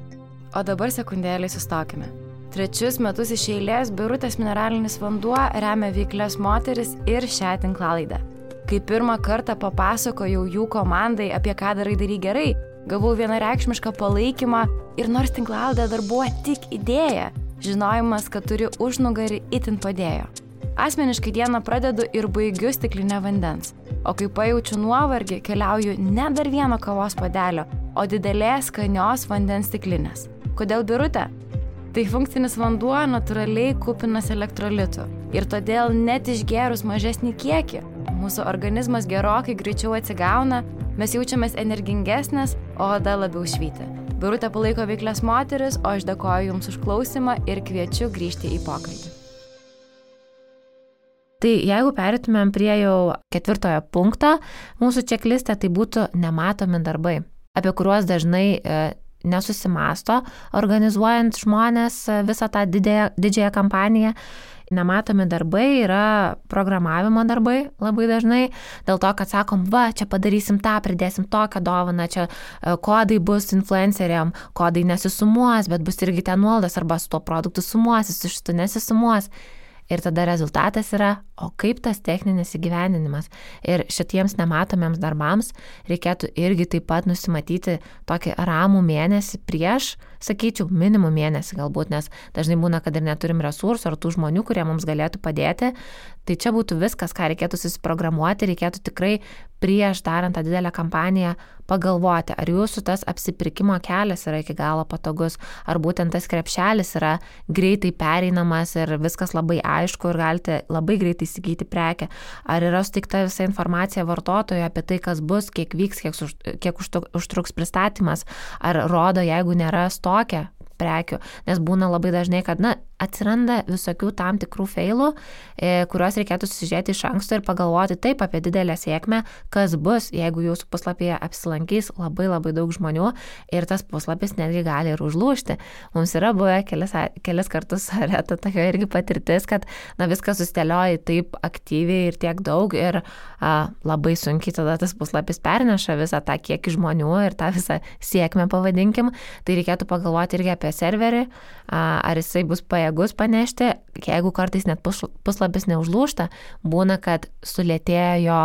O dabar sekundėlį sustokime. 3 metus iš eilės Birutės mineralinis vanduo remia veiklias moteris ir šią tinklalaidę. Kai pirmą kartą papasakojau jų komandai, apie ką darai gerai, gavau vienareikšmišką palaikymą ir nors tinklalaidė dar buvo tik idėja, žinojimas, kad turi užnugarį, itin padėjo. Asmeniškai dieną pradedu ir baigiu stiklinę vandens, o kai pajaučiu nuovargį, keliauju ne dar vieno kavos puodelio, o didelės skanios vandens stiklinės. Kodėl Birutė? Tai funkcinis vanduo natūraliai kupinas elektrolitų ir todėl net išgėrus mažesnį kiekį, mūsų organizmas gerokai greičiau atsigauna, mes jaučiamės energingesnės, o oda labiau švyti. Birutė palaiko veiklias moteris, o aš dėkoju Jums už klausimą ir kviečiu grįžti į pokalbį. Tai jeigu perėtumėm prie jau 4 punkto, mūsų čekliste tai būtų nematomi darbai, apie kuriuos dažnai nesusimasto, organizuojant žmonės visą tą didžiąją kampaniją. Nematomi darbai yra programavimo darbai labai dažnai, dėl to, kad sakom, čia padarysim tą, pridėsim tokią dovaną, čia kodai bus influenceriam, kodai nesisumuos, bet bus irgi ten nuolaidos arba su tuo produktu sumuosis, su šitu nesisumuos. Ir tada rezultatas yra, o kaip tas techninis įgyvendinimas. Ir šitiems nematomiems darbams reikėtų irgi taip pat nusimatyti tokį ramų mėnesį prieš, sakyčiau, minimum mėnesį galbūt, nes dažnai būna, kad ir neturim resursų ar tų žmonių, kurie mums galėtų padėti. Tai čia būtų viskas, ką reikėtų susiprogramuoti, reikėtų tikrai prieš darant tą didelę kampaniją pagalvoti, ar jūsų tas apsipirkimo kelias yra iki galo patogus, ar būtent tas krepšelis yra greitai pereinamas ir viskas labai aišku ir galite labai greitai įsigyti prekę, ar yra suteikta visa informacija vartotojui apie tai, kas bus, kiek vyks, kiek užtruks pristatymas, ar rodo, jeigu nėra stoke prekių, nes būna labai dažnai, kad atsiranda visokių tam tikrų feilų, kuriuos reikėtų susižiūrėti iš anksto ir pagalvoti taip apie didelę sėkmę, kas bus, jeigu jūsų puslapyje apsilankys labai labai daug žmonių ir tas puslapis netgi gali ir užlūžti. Mums yra buvę kelis kartus reta tokia irgi patirtis, kad viskas susidėlioja taip aktyviai ir tiek daug ir labai sunkiai tada tas puslapis perneša visą tą kiekį žmonių ir tą visą sėkmę pavadinkim. Tai reikėtų pagalvoti irgi apie serverį, ar jisai bus pajėgus panešti, jeigu kartais net puslapis neužlūžta, būna, kad sulėtėjo jo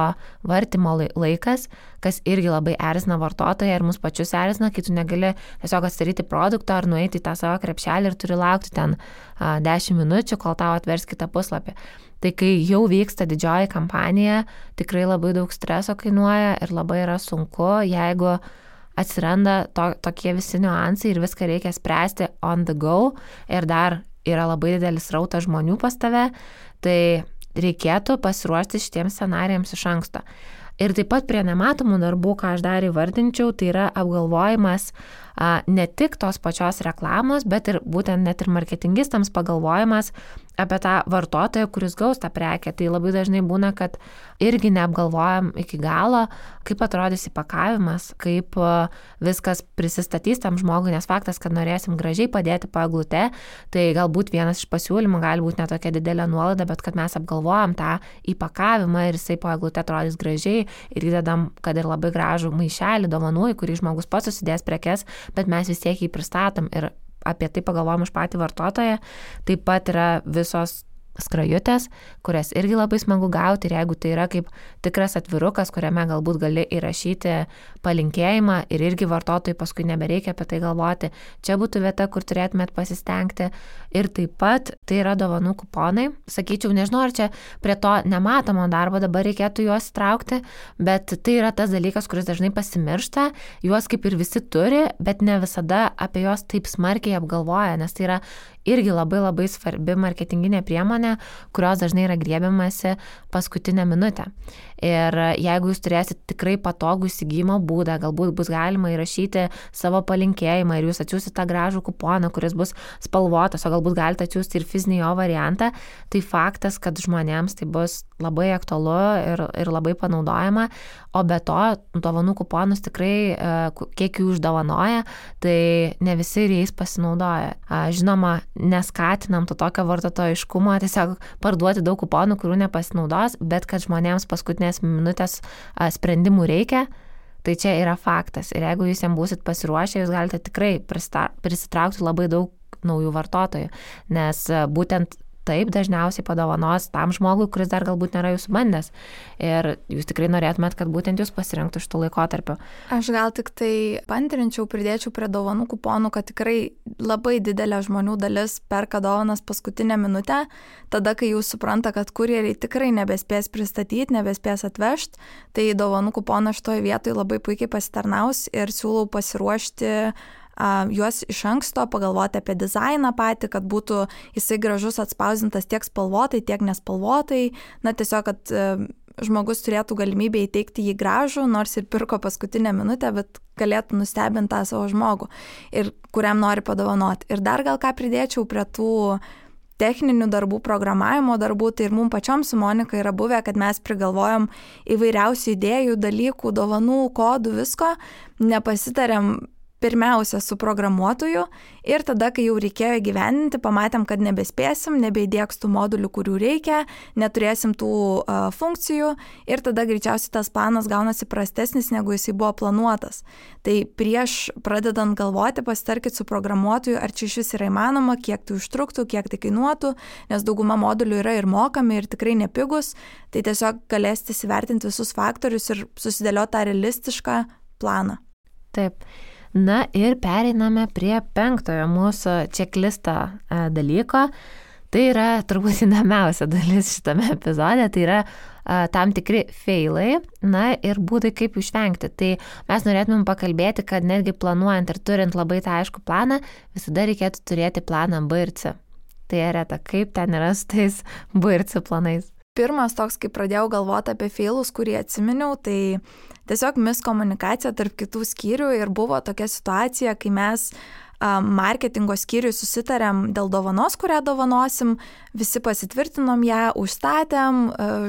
vartymo laikas, kas irgi labai erzina vartotoją ir mus pačius erzina, kai tu negali tiesiog atsidaryti produkto ar nueiti į tą savo krepšelį ir turi laukti ten 10 minučių, kol tau atvers kitą puslapį. Tai kai jau vyksta didžioji kampanija, tikrai labai daug streso kainuoja ir labai yra sunku, jeigu atsiranda tokie visi niuansai ir viską reikia spręsti on the go ir dar yra labai didelis rautas žmonių pas tave, tai reikėtų pasiruošti šitiems scenarijams iš anksto. Ir taip pat prie nematomų darbų, ką aš dar įvardinčiau, tai yra apgalvojimas ne tik tos pačios reklamos, bet ir būtent net ir marketingistams pagalvojimas apie tą vartotoją, kuris gaus tą prekę. Tai labai dažnai būna, kad irgi neapgalvojam iki galo, kaip atrodys įpakavimas, kaip viskas prisistatys tam žmogui, nes faktas, kad norėsim gražiai padėti po eglute, tai galbūt vienas iš pasiūlymų gali būti netokia didelė nuolaida, bet kad mes apgalvojam tą įpakavimą ir jisai po eglute atrodys gražiai ir įdedam, kad ir labai gražų maišelį dovanų, į kurį žmogus pats susidės prekes, bet mes vis tiek jį pristatom ir apie tai pagalvojam už patį vartotoją. Taip pat yra visos skrajutės, kurias irgi labai smagu gauti ir jeigu tai yra kaip tikras atvirukas, kuriame galbūt gali įrašyti palinkėjimą ir irgi vartotojai paskui nebereikia apie tai galvoti, čia būtų vieta, kur turėtumėt pasistengti. Ir taip pat tai yra dovanų kuponai. Sakyčiau, nežinau, ar čia prie to nematomo darbo dabar reikėtų juos įtraukti, bet tai yra tas dalykas, kuris dažnai pasimiršta, juos kaip ir visi turi, bet ne visada apie juos taip smarkiai apgalvoja, nes tai yra irgi labai svarbi marketinginė priemonė, kurios dažnai yra griebiamasi paskutinę minutę. Ir jeigu jūs turėsit tikrai patogų įsigijimo būdą, galbūt bus galima įrašyti savo palinkėjimą ir jūs atsiųsite tą gražų kuponą, kuris bus spalvotas, o galbūt galite atsiųsti ir fizinį jo variantą, tai faktas, kad žmonėms tai bus labai aktualu ir labai panaudojama, o be to, dovanų kuponus tikrai, kiek jų uždovanoja, tai ne visi ir jais pasinaudoja. Žinoma, neskatinam to tokio vartotojiškumo, tiesiog parduoti daug kuponų, kurių nepasinaudos, bet kad žmonėms paskutinės minutės sprendimų reikia, tai čia yra faktas. Ir jeigu jūs jam būsit pasiruošę, jūs galite tikrai prisitraukti labai daug naujų vartotojų, nes būtent taip dažniausiai padovanos tam žmogui, kuris dar galbūt nėra jūsų bandęs. Ir jūs tikrai norėtumėt, kad būtent jūs pasirinktų šitų laikotarpių. Aš gal tik tai pantrinčiau, pridėčiau prie dovanų kuponų, kad tikrai labai didelė žmonių dalis perka dovanas paskutinę minutę, tada, kai jūs supranta, kad kurjeriai tikrai nebespės pristatyti, nebespės atvežti, tai dovanų kuponas šitoje vietoje labai puikiai pasitarnaus ir siūlau pasiruošti juos iš anksto, pagalvoti apie dizainą patį, kad būtų jisai gražus atspausdintas tiek spalvotai, tiek nespalvotai, tiesiog, kad žmogus turėtų galimybę įteikti jį gražų, nors ir pirko paskutinę minutę, bet galėtų nustebinti tą savo žmogų ir kuriam nori padovanoti. Ir dar gal ką pridėčiau prie tų techninių darbų, programavimo darbų, tai ir mums pačiom su Monika yra buvę, kad mes prigalvojom įvairiausių idėjų, dalykų, dovanų, kodų, visko, nepasitarėm pirmiausia su programuotoju ir tada, kai jau reikėjo įgyvendinti, pamatėm, kad nebespėsim, nebeįdėks tų modulių, kurių reikia, neturėsim tų funkcijų ir tada greičiausiai tas planas gaunasi prastesnis, negu jisai buvo planuotas. Tai prieš pradedant galvoti, pasitarkit su programuotoju, ar čia iš vis yra įmanoma, kiek tai užtruktų, kiek tai kainuotų, nes dauguma modulių yra ir mokami ir tikrai nepigus, tai tiesiog galėsite įsivertinti visus faktorius ir susidėlioti tą realistišką planą. Taip. Na ir pereiname prie 5 mūsų čeklisto dalyko. Tai yra turbūt įdomiausia dalis šitame epizode, tai yra tam tikri feilai, na ir būdai kaip išvengti. Tai mes norėtumėm pakalbėti, kad netgi planuojant ir turint labai tą aišku planą, visada reikėtų turėti planą B ir C. Tai Reta, kaip ten yra su tais B ir C planais? Pirmas toks, kai pradėjau galvoti apie feilus, kurį atsiminiau, tai tiesiog miskomunikacija tarp kitų skyrių ir buvo tokia situacija, kai mes marketingo skyriui susitarėm dėl dovanos, kurią dovanosim, visi pasitvirtinom ją, užstatėm,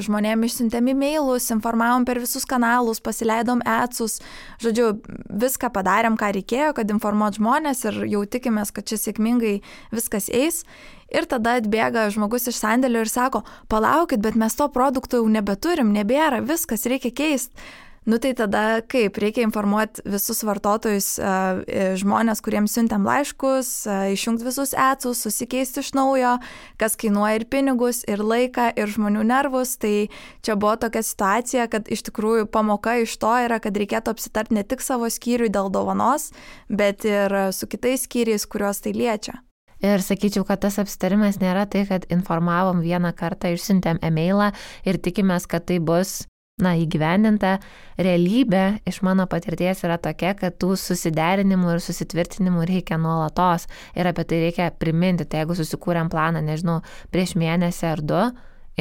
žmonėm išsiuntėm e-mailus, informavom per visus kanalus, pasileidom ads-us, žodžiu, viską padarėm, ką reikėjo, kad informuot žmonės ir jau tikimės, kad čia sėkmingai viskas eis. Ir tada atbėga žmogus iš sandėlio ir sako, palaukit, bet mes to produkto jau nebeturim, nebėra, viskas reikia keisti. Tai tada kaip? Reikia informuoti visus vartotojus, žmonės, kuriems siuntėm laiškus, išjungti visus ads-us, susikeisti iš naujo, kas kainuoja ir pinigus, ir laiką, ir žmonių nervus. Tai čia buvo tokia situacija, kad iš tikrųjų pamoka iš to yra, kad reikėtų apsitarti ne tik savo skyriui dėl dovanos, bet ir su kitais skyriais, kuriuos tai liečia. Ir sakyčiau, kad tas apsitarimas nėra tai, kad informavom vieną kartą, išsiuntėm e-mailą ir tikimės, kad tai bus įgyvendinta. Realybė iš mano patirties yra tokia, kad tų susiderinimų ir susitvirtinimų reikia nuolatos ir apie tai reikia priminti. Tai jeigu susikūrėm planą, nežinau, prieš mėnesį ar 2,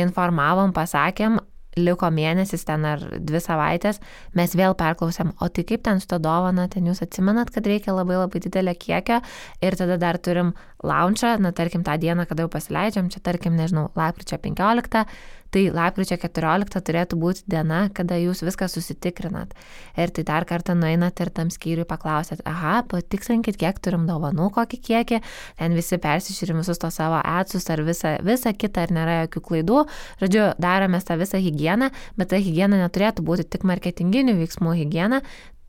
informavom, pasakėm, liko mėnesis ten ar 2 savaitės, mes vėl perklausėm, o tai kaip ten su ta dovana, ten jūs atsimenat, kad reikia labai didelio kiekio ir tada dar turim launchą, tarkim tą dieną, kada jau pasileidžiam, čia tarkim, nežinau, lapkričio 15, tai lapkričio 14 turėtų būti diena, kada jūs viską susitikrinat. Ir tai dar kartą nueinat ir tam skyriui paklausėt, patikslinkit, kiek turim dovanų, kokį kiekį, ten visi persižiūrim visus to savo ads-us ar visą kitą, ar nėra jokių klaidų. Žodžiu, daromės tą visą higieną, bet ta higiena neturėtų būti tik marketinginių veiksmų higiena,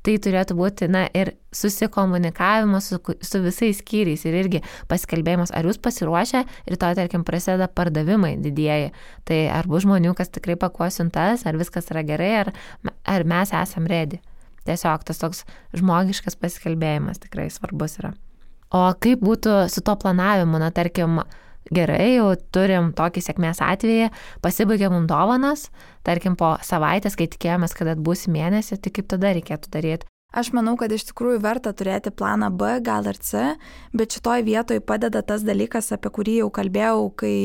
tai turėtų būti, ir susikomunikavimas su visais skyriais ir irgi pasikalbėjimas, ar jūs pasiruošę, rytoj, tarkim, prasideda pardavimai didieji. Tai ar bus žmonių, kas tikrai pakuos siuntas, ar viskas yra gerai, ar mes esam ready. Tiesiog tas toks žmogiškas pasikalbėjimas tikrai svarbus yra. O kaip būtų su to planavimu, tarkim, gerai, jau turim tokį sėkmės atvejį, pasibaigė mums dovanas, tarkim, po savaitės, kai tikėjomės, kad atbūs mėnesį, tai kaip tada reikėtų daryti? Aš manau, kad iš tikrųjų verta turėti planą B, gal ir C, bet šitoj vietoj padeda tas dalykas, apie kurį jau kalbėjau, kai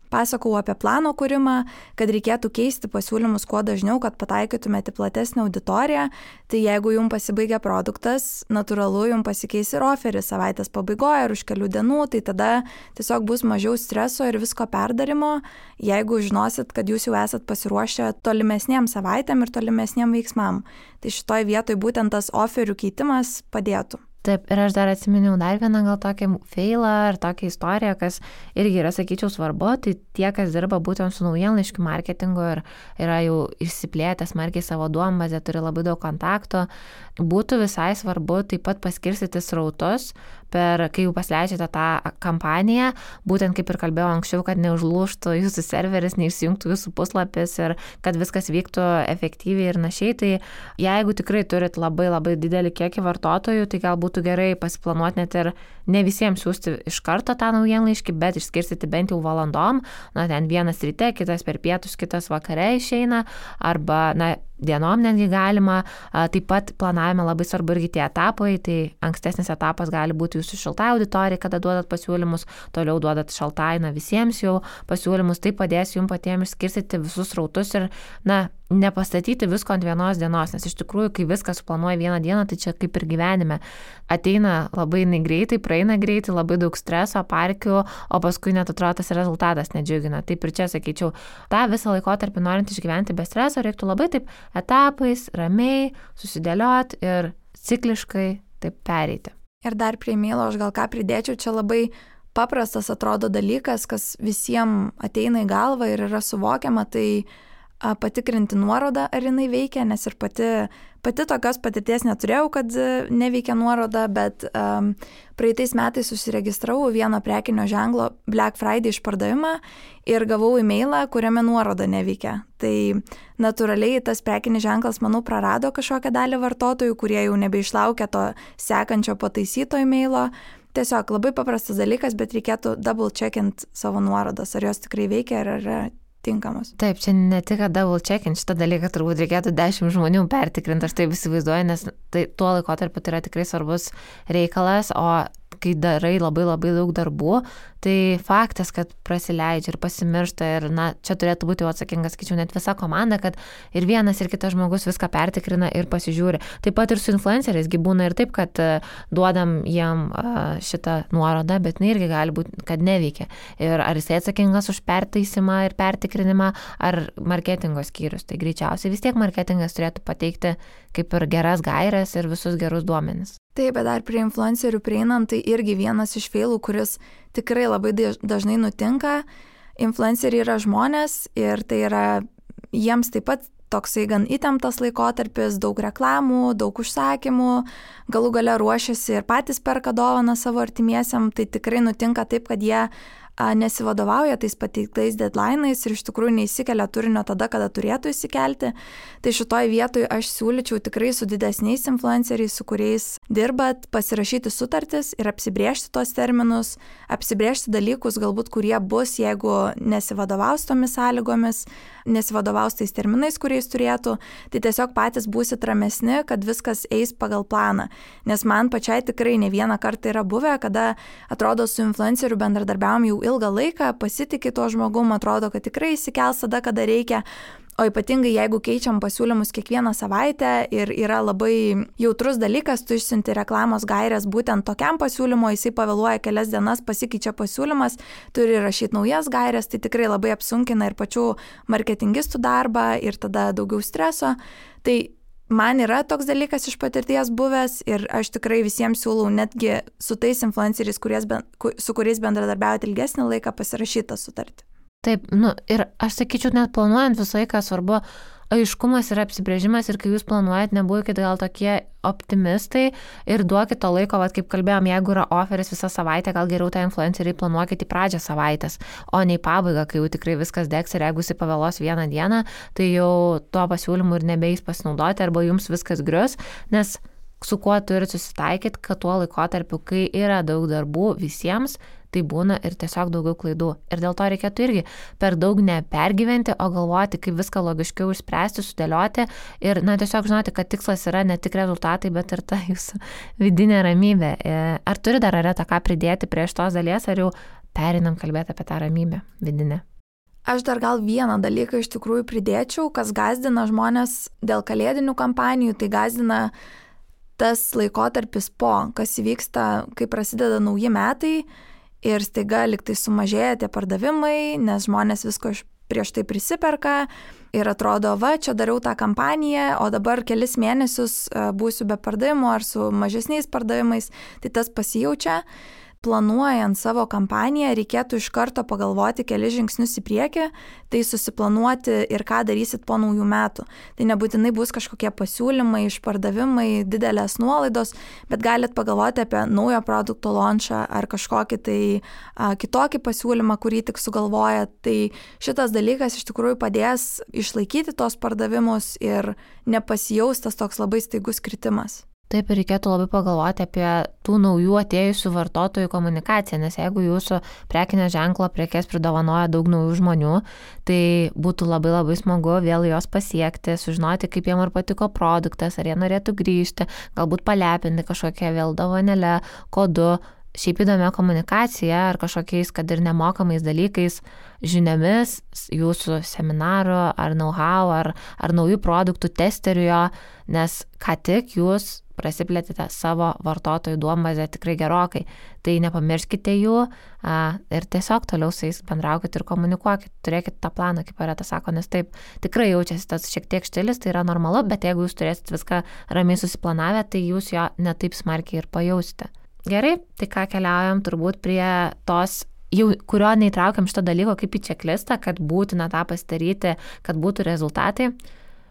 pasakau apie plano kūrimą, kad reikėtų keisti pasiūlymus kuo dažniau, kad pataikytumėte platesnę auditoriją. Tai jeigu jums pasibaigia produktas, natūralu jums pasikeis ir oferis savaitės pabaigoje ar už kelių dienų, tai tada tiesiog bus mažiau streso ir visko perdarimo, jeigu žinosit, kad jūs jau esat pasiruošę tolimesniem savaitėm ir tolimesniem veiksmam. Tai šitoj vietoj būtent tas oferių keitimas padėtų. Taip, ir aš dar atsiminiau dar vieną gal tokį failą ar tokią istoriją, kas irgi yra, sakyčiau, svarbu, tai tie, kas dirba būtent su naujienlaiškių marketingu ir yra jau išsiplėtę smarkiai savo duombazę, turi labai daug kontaktų, būtų visai svarbu taip pat paskirstyti srautus, kai jau pasileidžiate tą kampaniją, būtent kaip ir kalbėjau anksčiau, kad neužlūžtų jūsų serveris, neišsijungtų jūsų puslapis ir kad viskas vyktų efektyviai ir našiai. Tai jeigu tikrai turit labai labai didelį kiekį vartotojų, tai gal būtų gerai pasiplanuoti net ir ne visiems siūsti iš karto tą naujienlaiškį, bet išskirstyti bent jau valandom, ten vienas ryte, kitas per pietus, kitas vakare išeina, arba, dienom netgi galima. Taip pat planavime labai svarbu irgi tie etapai, tai ankstesnis etapas gali būti jūsų šiltai auditorijai, kada duodat pasiūlymus, toliau duodat šaltai, visiems jau pasiūlymus, tai padės jums patiems išskirstyti visus srautus ir, nepastatyti visko ant vienos dienos, nes iš tikrųjų, kai viską suplanuoja vieną dieną, tai čia kaip ir gyvenime. Ateina labai greitai, praeina greitai, labai daug streso, parkių, o paskui net atrodo tas rezultatas nedžiugina. Taip ir čia, sakyčiau, tą visą laikotarpį norint išgyventi be streso, reiktų labai taip etapais, ramiai, susidėlioti ir cikliškai taip pereiti. Ir dar prie emailo aš gal ką pridėčiau, čia labai paprastas atrodo dalykas, kas visiems ateina į galvą ir yra suvokiama, tai patikrinti nuorodą, ar jinai veikia, nes ir pati tokios patirties neturėjau, kad neveikia nuoroda, bet praeitais metais susiregistravau vieno prekinio ženklo Black Friday išpardavimą ir gavau e-mailą, kuriame nuoroda neveikia. Tai natūraliai tas prekinis ženklas, manau, prarado kažkokią dalį vartotojų, kurie jau nebeišlaukia to sekančio pataisyto e-mailo. Tiesiog labai paprastas dalykas, bet reikėtų double checkint savo nuorodas, ar jos tikrai veikia, ar yra tinkamos. Taip, čia ne tik double checkint, šitą dalyką turbūt reikėtų 10 žmonių pertikrinti, aš taip įsivaizduoju, nes tuo laikotarpiu tai yra tikrai svarbus reikalas, o kai darai labai labai daug darbų, tai faktas, kad prasileidžia ir pasimiršta ir, čia turėtų būti jau atsakingas, skaičiau, net visa komanda, kad ir vienas ir kitas žmogus viską pertikrina ir pasižiūri. Taip pat ir su influenceriais būna ir taip, kad duodam jam šitą nuorodą, bet irgi gali būti, kad neveikia. Ir ar jisai atsakingas už pertaisimą ir pertikrinimą, ar marketingo skyrius. Tai greičiausiai vis tiek marketingas turėtų pateikti kaip ir geras gaires ir visus gerus duomenis. Taip, bet dar prie influencerių prieinant, tai irgi vienas iš feilų, kuris tikrai labai dažnai nutinka. Influenceriai yra žmonės ir tai yra jiems taip pat toksai gan įtemptas laikotarpis, daug reklamų, daug užsakymų, galų gale ruošiasi ir patys perka dovaną savo artimiesiam, tai tikrai nutinka taip, kad jie nesivadovauja tais pateiktais deadline'ais ir iš tikrųjų neįsikelia turinio tada, kada turėtų įsikelti. Tai šitoj vietoj aš siūlyčiau tikrai su didesniais influenceriais, su kuriais dirbat, pasirašyti sutartis ir apsibrėžti tos terminus, apsibrėžti dalykus galbūt, kurie bus, jeigu nesivadovaus tomis sąlygomis, nesivadovaus tais terminais, kuriais turėtų, tai tiesiog patys būsit ramesni, kad viskas eis pagal planą. Nes man pačiai tikrai ne vieną kartą yra buvę, kada atrodo su influenceriu bendradarbiavom jau ilgą laiką, pasitikė tuo žmogum, atrodo, kad tikrai įsikels tada, kada reikia. O ypatingai, jeigu keičiam pasiūlymus kiekvieną savaitę ir yra labai jautrus dalykas, tu išsiunti reklamos gairės būtent tokiam pasiūlymo, jisai pavėluoja kelias dienas, pasikeičia pasiūlymas, turi rašyti naujas gairės, tai tikrai labai apsunkina ir pačių marketingistų darbą ir tada daugiau streso. Tai man yra toks dalykas iš patirties buvęs ir aš tikrai visiems siūlau netgi su tais influenceriais, su kuriais bendradarbiaujate ilgesnį laiką, pasirašytą sutartį. Taip, ir aš sakyčiau, net planuojant visą laiką svarbu aiškumas ir apsibrėžimas ir kai jūs planuojat, nebūkit gal tokie optimistai ir duokit to laiko, vat, kaip kalbėjom, jeigu yra oferis visą savaitę, gal geriau tą influenceriai planuokit į pradžią savaitės, o ne į pabaigą, kai jau tikrai viskas degs ir jeigu jis pavėlos vieną dieną, tai jau tuo pasiūlymu ir nebeis pasinaudoti arba jums viskas grius, nes su kuo turit susitaikyti, kad tuo laikotarpiu, kai yra daug darbų visiems, tai būna ir tiesiog daugiau klaidų. Ir dėl to reikėtų irgi per daug nepergyventi, o galvoti, kaip viską logiškiau išspręsti, sudėlioti ir, tiesiog žinoti, kad tikslas yra ne tik rezultatai, bet ir ta jūsų vidinė ramybė. Ar turi dar Areta ką pridėti prie šitos dalies, ar jau pereinam kalbėti apie tą ramybę vidinę? Aš dar gal vieną dalyką iš tikrųjų pridėčiau, kas gazdina žmonės dėl kalėdinių kampanijų, tai gazdina tas laikotarpis kas įvyksta, kai prasideda nauji metai ir staiga liktai sumažėja tie pardavimai, nes žmonės visko prieš tai prisiperka ir atrodo, čia dariau tą kampaniją, o dabar kelis mėnesius būsiu be pardavimų ar su mažesniais pardavimais, tai tas pasijaučia. Planuojant savo kampaniją, reikėtų iš karto pagalvoti kelis žingsnius į priekį, tai susiplanuoti ir ką darysit po naujų metų. Tai nebūtinai bus kažkokie pasiūlymai, išpardavimai, didelės nuolaidos, bet galit pagalvoti apie naujo produkto launchą ar kažkokį tai kitokį pasiūlymą, kurį tik sugalvojat. Tai šitas dalykas iš tikrųjų padės išlaikyti tos pardavimus ir nepasijaus tas toks labai staigus kritimas. Taip, ir reikėtų labai pagalvoti apie tų naujų atėjusių vartotojų komunikaciją, nes jeigu jūsų prekinio ženklo prekes pridovanoja daug naujų žmonių, tai būtų labai labai smagu vėl jos pasiekti, sužinoti, kaip jiem ar patiko produktas, ar jie norėtų grįžti, galbūt palepinti kažkokią vėl dovanėlę, kodu, šiaip įdomia komunikacija ar kažkokiais, kad ir nemokamais dalykais, žiniomis, jūsų seminaro ar know-how, ar naujų produktų testerių, nes ką tik jūs prasiplėtėte savo vartotojų duombazę tikrai gerokai. Tai nepamirškite jų ir tiesiog toliau su jais bendraukit ir komunikuokit, turėkit tą planą, kaip Areta sako, nes taip tikrai jaučiasi tas šiek tiek štilis, tai yra normalu, bet jeigu jūs turėsit viską ramiai susiplanavę, tai jūs jo netaip smarkiai ir pajausite. Gerai, tai ką keliaujam turbūt prie tos, kurio neįtraukiam šito dalyko kaip į čeklistą, kad būtina tą pasidaryti, kad būtų rezultatai.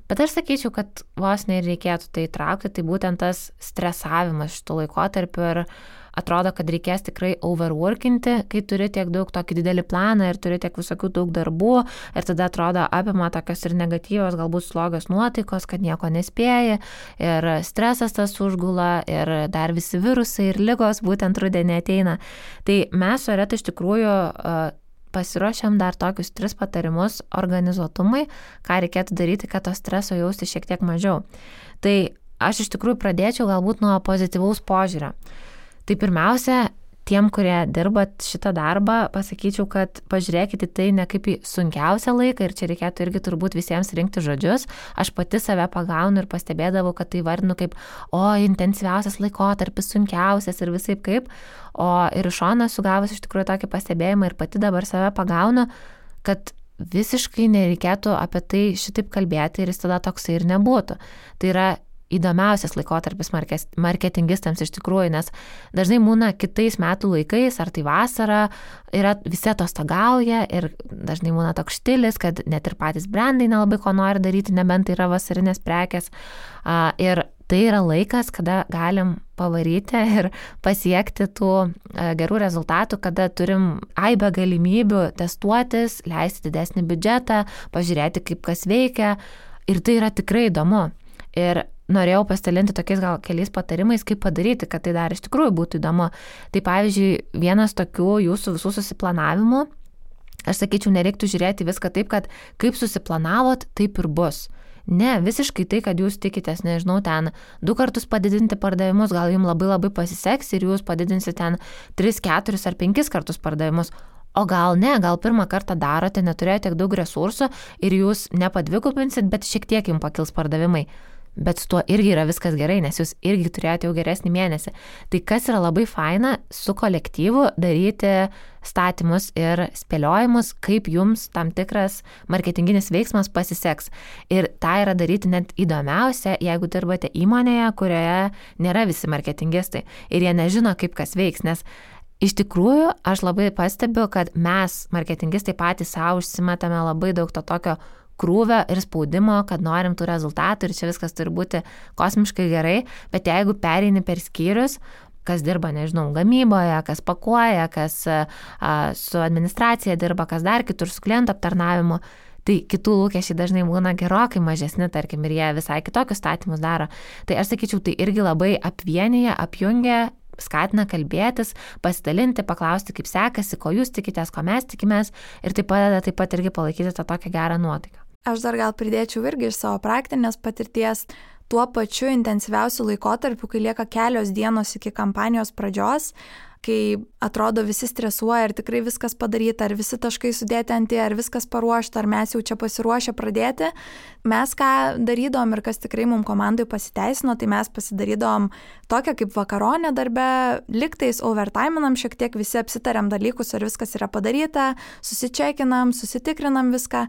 Bet aš sakyčiau, kad vos nereikėtų tai įtraukti, tai būtent tas stresavimas šitų laikotarpių ir atrodo, kad reikės tikrai overworkinti, kai turi tiek daug tokį didelį planą ir turi tiek visokių daug darbų ir tada atrodo apima tokios ir negatyvios, galbūt slogios nuotaikos, kad nieko nespėji ir stresas tas užgula ir dar visi virusai ir ligos būtent rudenį ateina. Tai mes su Areta iš tikrųjų pasiruošiam dar tokius 3 patarimus organizuotumui, ką reikėtų daryti, kad to streso jausti šiek tiek mažiau. Tai aš iš tikrųjų pradėčiau galbūt nuo pozityvaus požiūrio. Tai pirmiausia, tiem, kurie dirbat šitą darbą, pasakyčiau, kad pažiūrėkite tai ne kaip į sunkiausią laiką ir čia reikėtų irgi turbūt visiems rinkti žodžius. Aš pati save pagaunu ir pastebėdavau, kad tai vardinu kaip, intensyviausias laikotarpis, sunkiausias ir visaip kaip. O ir iš šono sugavus iš tikrųjų tokį pastebėjimą ir pati dabar save pagaunu, kad visiškai nereikėtų apie tai šitaip kalbėti ir jis tada toksai ir nebūtų. Tai yra įdomiausias laikotarpis marketingistams iš tikrųjų, nes dažnai būna kitais metų laikais, ar tai vasara, visi atostogauja ir dažnai būna toks štilis, kad net ir patys brandai nelabai ko nori daryti, nebent tai yra vasarinės prekės. Ir tai yra laikas, kada galim pavaryti ir pasiekti tų gerų rezultatų, kada turim aibę galimybių testuotis, leisti didesnį biudžetą, pažiūrėti, kaip kas veikia. Ir tai yra tikrai įdomu. Ir norėjau pasidalinti tokiais gal keliais patarimais, kaip padaryti, kad tai dar iš tikrųjų būtų įdomu. Tai pavyzdžiui, vienas tokių jūsų visų susiplanavimų, aš sakyčiau, nereiktų žiūrėti viską taip, kad kaip susiplanavot, taip ir bus. Ne, visiškai tai, kad jūs tikitės, nežinau, ten 2 kartus padidinti pardavimus, gal jums labai labai pasiseks ir jūs padidinsite ten 3, 4 ar 5 kartus pardavimus. O gal ne, gal pirmą kartą darote, neturėjote tiek daug resursų ir jūs nepadvigubinsit, bet šiek tiek jums pakils pardavimai. Bet su tuo irgi yra viskas gerai, nes jūs irgi turėjote jau geresnį mėnesį. Tai kas yra labai faina su kolektyvu daryti statymus ir spėliojimus, kaip jums tam tikras marketinginis veiksmas pasiseks. Ir tą yra daryti net įdomiausia, jeigu dirbate įmonėje, kurioje nėra visi marketingistai ir jie nežino, kaip kas veiks, nes iš tikrųjų aš labai pastebiu, kad mes marketingistai patys savo užsimetame labai daug to tokio krūvio ir spaudimo, kad norim tų rezultatų ir čia viskas turi būti kosmiškai gerai, bet jeigu pereini per skyrius, kas dirba, nežinau, gamyboje, kas pakuoja, kas su administracija dirba, kas dar kitur su klientų aptarnavimu, tai kitų lūkesčiai dažnai būna gerokai mažesni, tarkim, ir jie visai kitokius statymus daro. Tai aš sakyčiau, tai irgi labai apvienyje, apjungia, skatina kalbėtis, pasidalinti, paklausti, kaip sekasi, ko jūs tikitės, ko mes tikimės ir tai padeda taip pat irgi palaikyti tą tokią gerą nuotaiką. Aš dar gal pridėčiau irgi iš savo praktinės patirties tuo pačiu intensyviausiu laikotarpiu, kai lieka kelios dienos iki kampanijos pradžios, kai atrodo visi stresuoja, ar tikrai viskas padaryta, ar visi taškai sudėti ant į, ar viskas paruošta, ar mes jau čia pasiruošę pradėti. Mes ką darydom ir kas tikrai mums komandai pasiteisino, tai mes pasidarydom tokią kaip vakaronę darbę, liktais overtiminam šiek tiek, visi apsitariam dalykus, ar viskas yra padaryta, susičekinam, susitikrinam viską,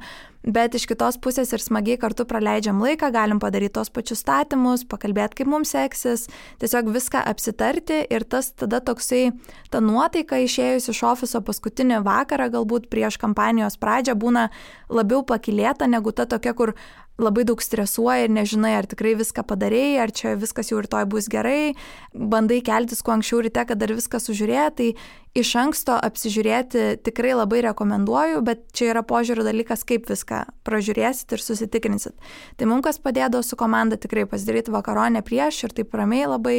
bet iš kitos pusės ir smagiai kartu praleidžiam laiką, galim padaryti tos pačius statymus, pakalbėti, kaip mums seksis, tiesiog viską apsitarti ir tas tada toksai, ta nuotaika išėjus iš ofiso paskutinį vakarą, galbūt prieš kampanijos pradžią, būna labiau pakylėta negu ta tokia, kur labai daug stresuoja ir nežinai, ar tikrai viską padarėjai, ar čia viskas jau rytoj bus gerai, bandai keltis kuo anksčiau ryte, kad dar viską sužiūrėti, tai iš anksto apsižiūrėti tikrai labai rekomenduoju, bet čia yra požiūrio dalykas, kaip viską pražiūrėsit ir susitikrinsit. Tai mums kas padėdavo su komanda tikrai pasidaryti vakaronę prieš ir taip ramiai labai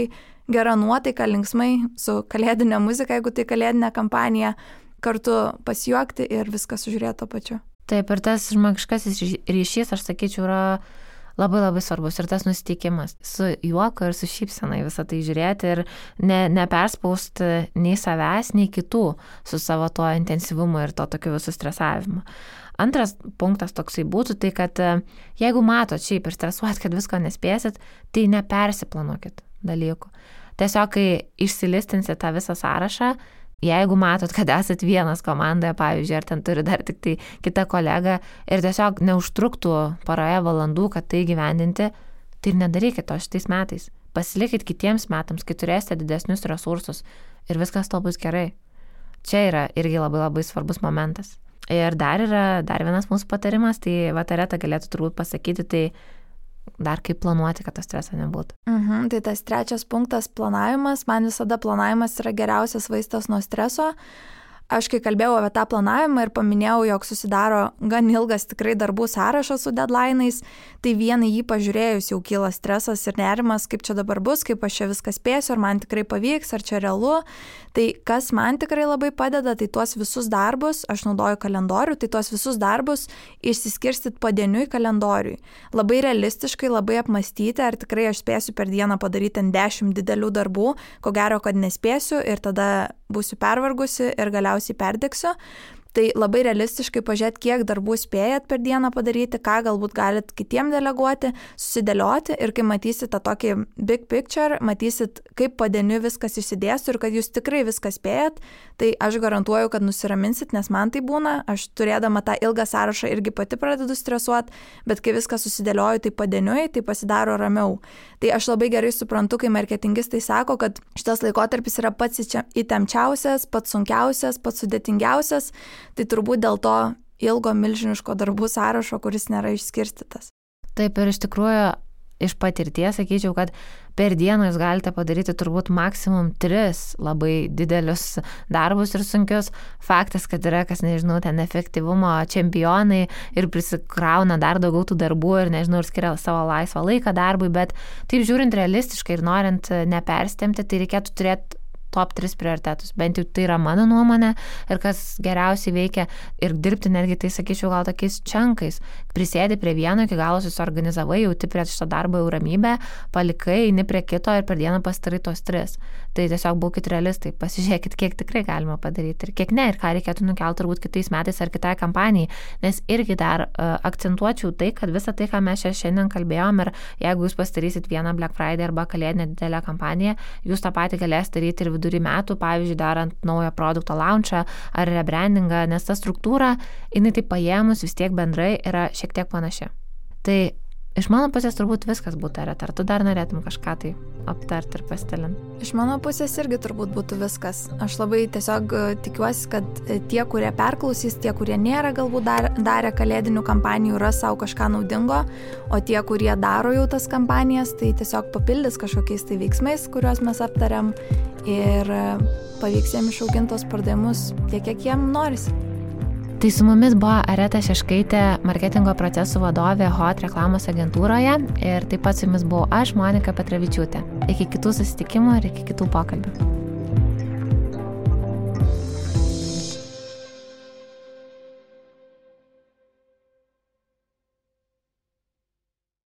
gera nuotaika, linksmai, su kalėdinė muzika, jeigu tai kalėdinė kampanija, kartu pasijuokti ir viską sužiūrėti to pačiu. Taip, ir tas žmogiškasis ryšys, aš sakyčiau, yra labai labai svarbus ir tas nusiteikimas su juoku ir su šypsena į visą tai žiūrėti ir neperspausti nei savęs, nei kitų su savo tuo intensyvumu ir to tokiu visų stresavimu. Antras punktas toksai būtų tai, kad jeigu matot šiaip ir stresuojat, kad visko nespėsit, tai nepersiplanuokit dalykų. Tiesiog, kai išsilistinsit tą visą sąrašą, jeigu matot, kad esat vienas komandoje, pavyzdžiui, ar ten turi dar tik tai kitą kolegą ir tiesiog neužtruktų paroje valandų, kad tai gyvendinti, tai ir nedarykit to šitais metais. Pasilikit kitiems metams, kai turėsite didesnius resursus ir viskas to bus gerai. Čia yra irgi labai labai svarbus momentas. Ir dar vienas mūsų patarimas, tai Areta galėtų turbūt pasakyti, tai dar kaip planuoti, kad to streso nebūtų. Tai tas trečias punktas – planavimas. Man visada planavimas yra geriausias vaistas nuo streso. Aš kai kalbėjau apie tą planavimą ir paminėjau, jog susidaro gan ilgas tikrai darbų sąrašas su deadline'ais, tai vieną jį pažiūrėjus jau kyla stresas ir nerimas, kaip čia dabar bus, kaip aš čia viską spėsiu, ar man tikrai pavyks, ar čia realu. Tai kas man tikrai labai padeda, tai tuos visus darbus, aš naudoju kalendorių, tai tuos visus darbus išsiskirstyt padieniui kalendoriui. Labai realistiškai, labai apmastyti, ar tikrai aš spėsiu per dieną padaryti 10 didelių darbų, ko gero, kad nespėsiu ir tada būsiu pervargusi ir galiausiai perdegsiu. Tai labai realistiškai pažiūrėti, kiek darbų spėjat per dieną padaryti, ką galbūt galit kitiem deleguoti, susidėlioti ir kai matysit tą tokį big picture, matysit, kaip padieniui viskas išsidėstų ir kad jūs tikrai viską spėjat, tai aš garantuoju, kad nusiraminsit, nes man tai būna, aš turėdama tą ilgą sąrašą irgi pati pradedu stresuoti, bet kai viską susidėlioju tai padieniui, tai pasidaro ramiau. Tai aš labai gerai suprantu, kai marketingistai sako, kad šitas laikotarpis yra pats įtempčiausias, pats sunkiausias, pats sudėtingiausias, tai turbūt dėl to ilgo milžiniško darbų sąrašo, kuris nėra išskirstytas. Taip ir iš tikrųjų iš patirties sakyčiau, kad per dieną jūs galite padaryti turbūt maksimum 3 labai didelius darbus ir sunkius. Faktas, kad yra, kas nežinau, ten efektyvumo čempionai ir prisikrauna dar daugiau tų darbų ir nežinau, ir skiria savo laisvą laiką darbui, bet taip žiūrint realistiškai ir norint nepersitempti, tai reikėtų turėti top 3 prioritetus. Bent jau tai yra mano nuomonė ir kas geriausiai veikia ir dirbti netgi, tai sakyčiau, gal tokiais čankais. Prisėdi prie vieno, iki galo susiorganizavai, jauti prie šito darbo jau ramybę, palikai, eini prie kito ir per dieną pasidarai tos 3. Tai tiesiog būkit realistai, pasižiūrėkit, kiek tikrai galima padaryti ir kiek ne, ir ką reikėtų nukelti turbūt kitais metais ar kitai kampanijai. Nes irgi dar akcentuočiau tai, kad visą tai, ką mes šiandien kalbėjom, ir jeigu jūs pasidarysit vieną Black Friday arba kalėdinę didelę kampaniją, jūs tą patį galėsite daryti ir vidury metų, pavyzdžiui, darant naują produkto launchą ar rebrandingą, nes ta struktūra, jinai taip paėmus vis tiek bendrai yra šiek tiek panaši. Tai Iš mano pusės turbūt viskas būtų, ar tu dar norėtum kažką tai aptarti ir pasidalinti? Iš mano pusės irgi turbūt būtų viskas. Aš labai tiesiog tikiuosi, kad tie, kurie perklausys, tie, kurie nėra galbūt darę kalėdinių kampanijų, ras savo kažką naudingo, o tie, kurie daro jau tas kampanijas, tai tiesiog papildys kažkokiais tai veiksmais, kuriuos mes aptariam ir pavyks jiem išauginti tos pardavimus tiek, kiek jiem norisi. Tai su mumis buvo Areta Šeškaitė, marketingo procesų vadovė HOT reklamos agentūroje ir taip pat su jumis buvau aš, Monika Petravičiūtė. Iki kitų susitikimų ir iki kitų pokalbių.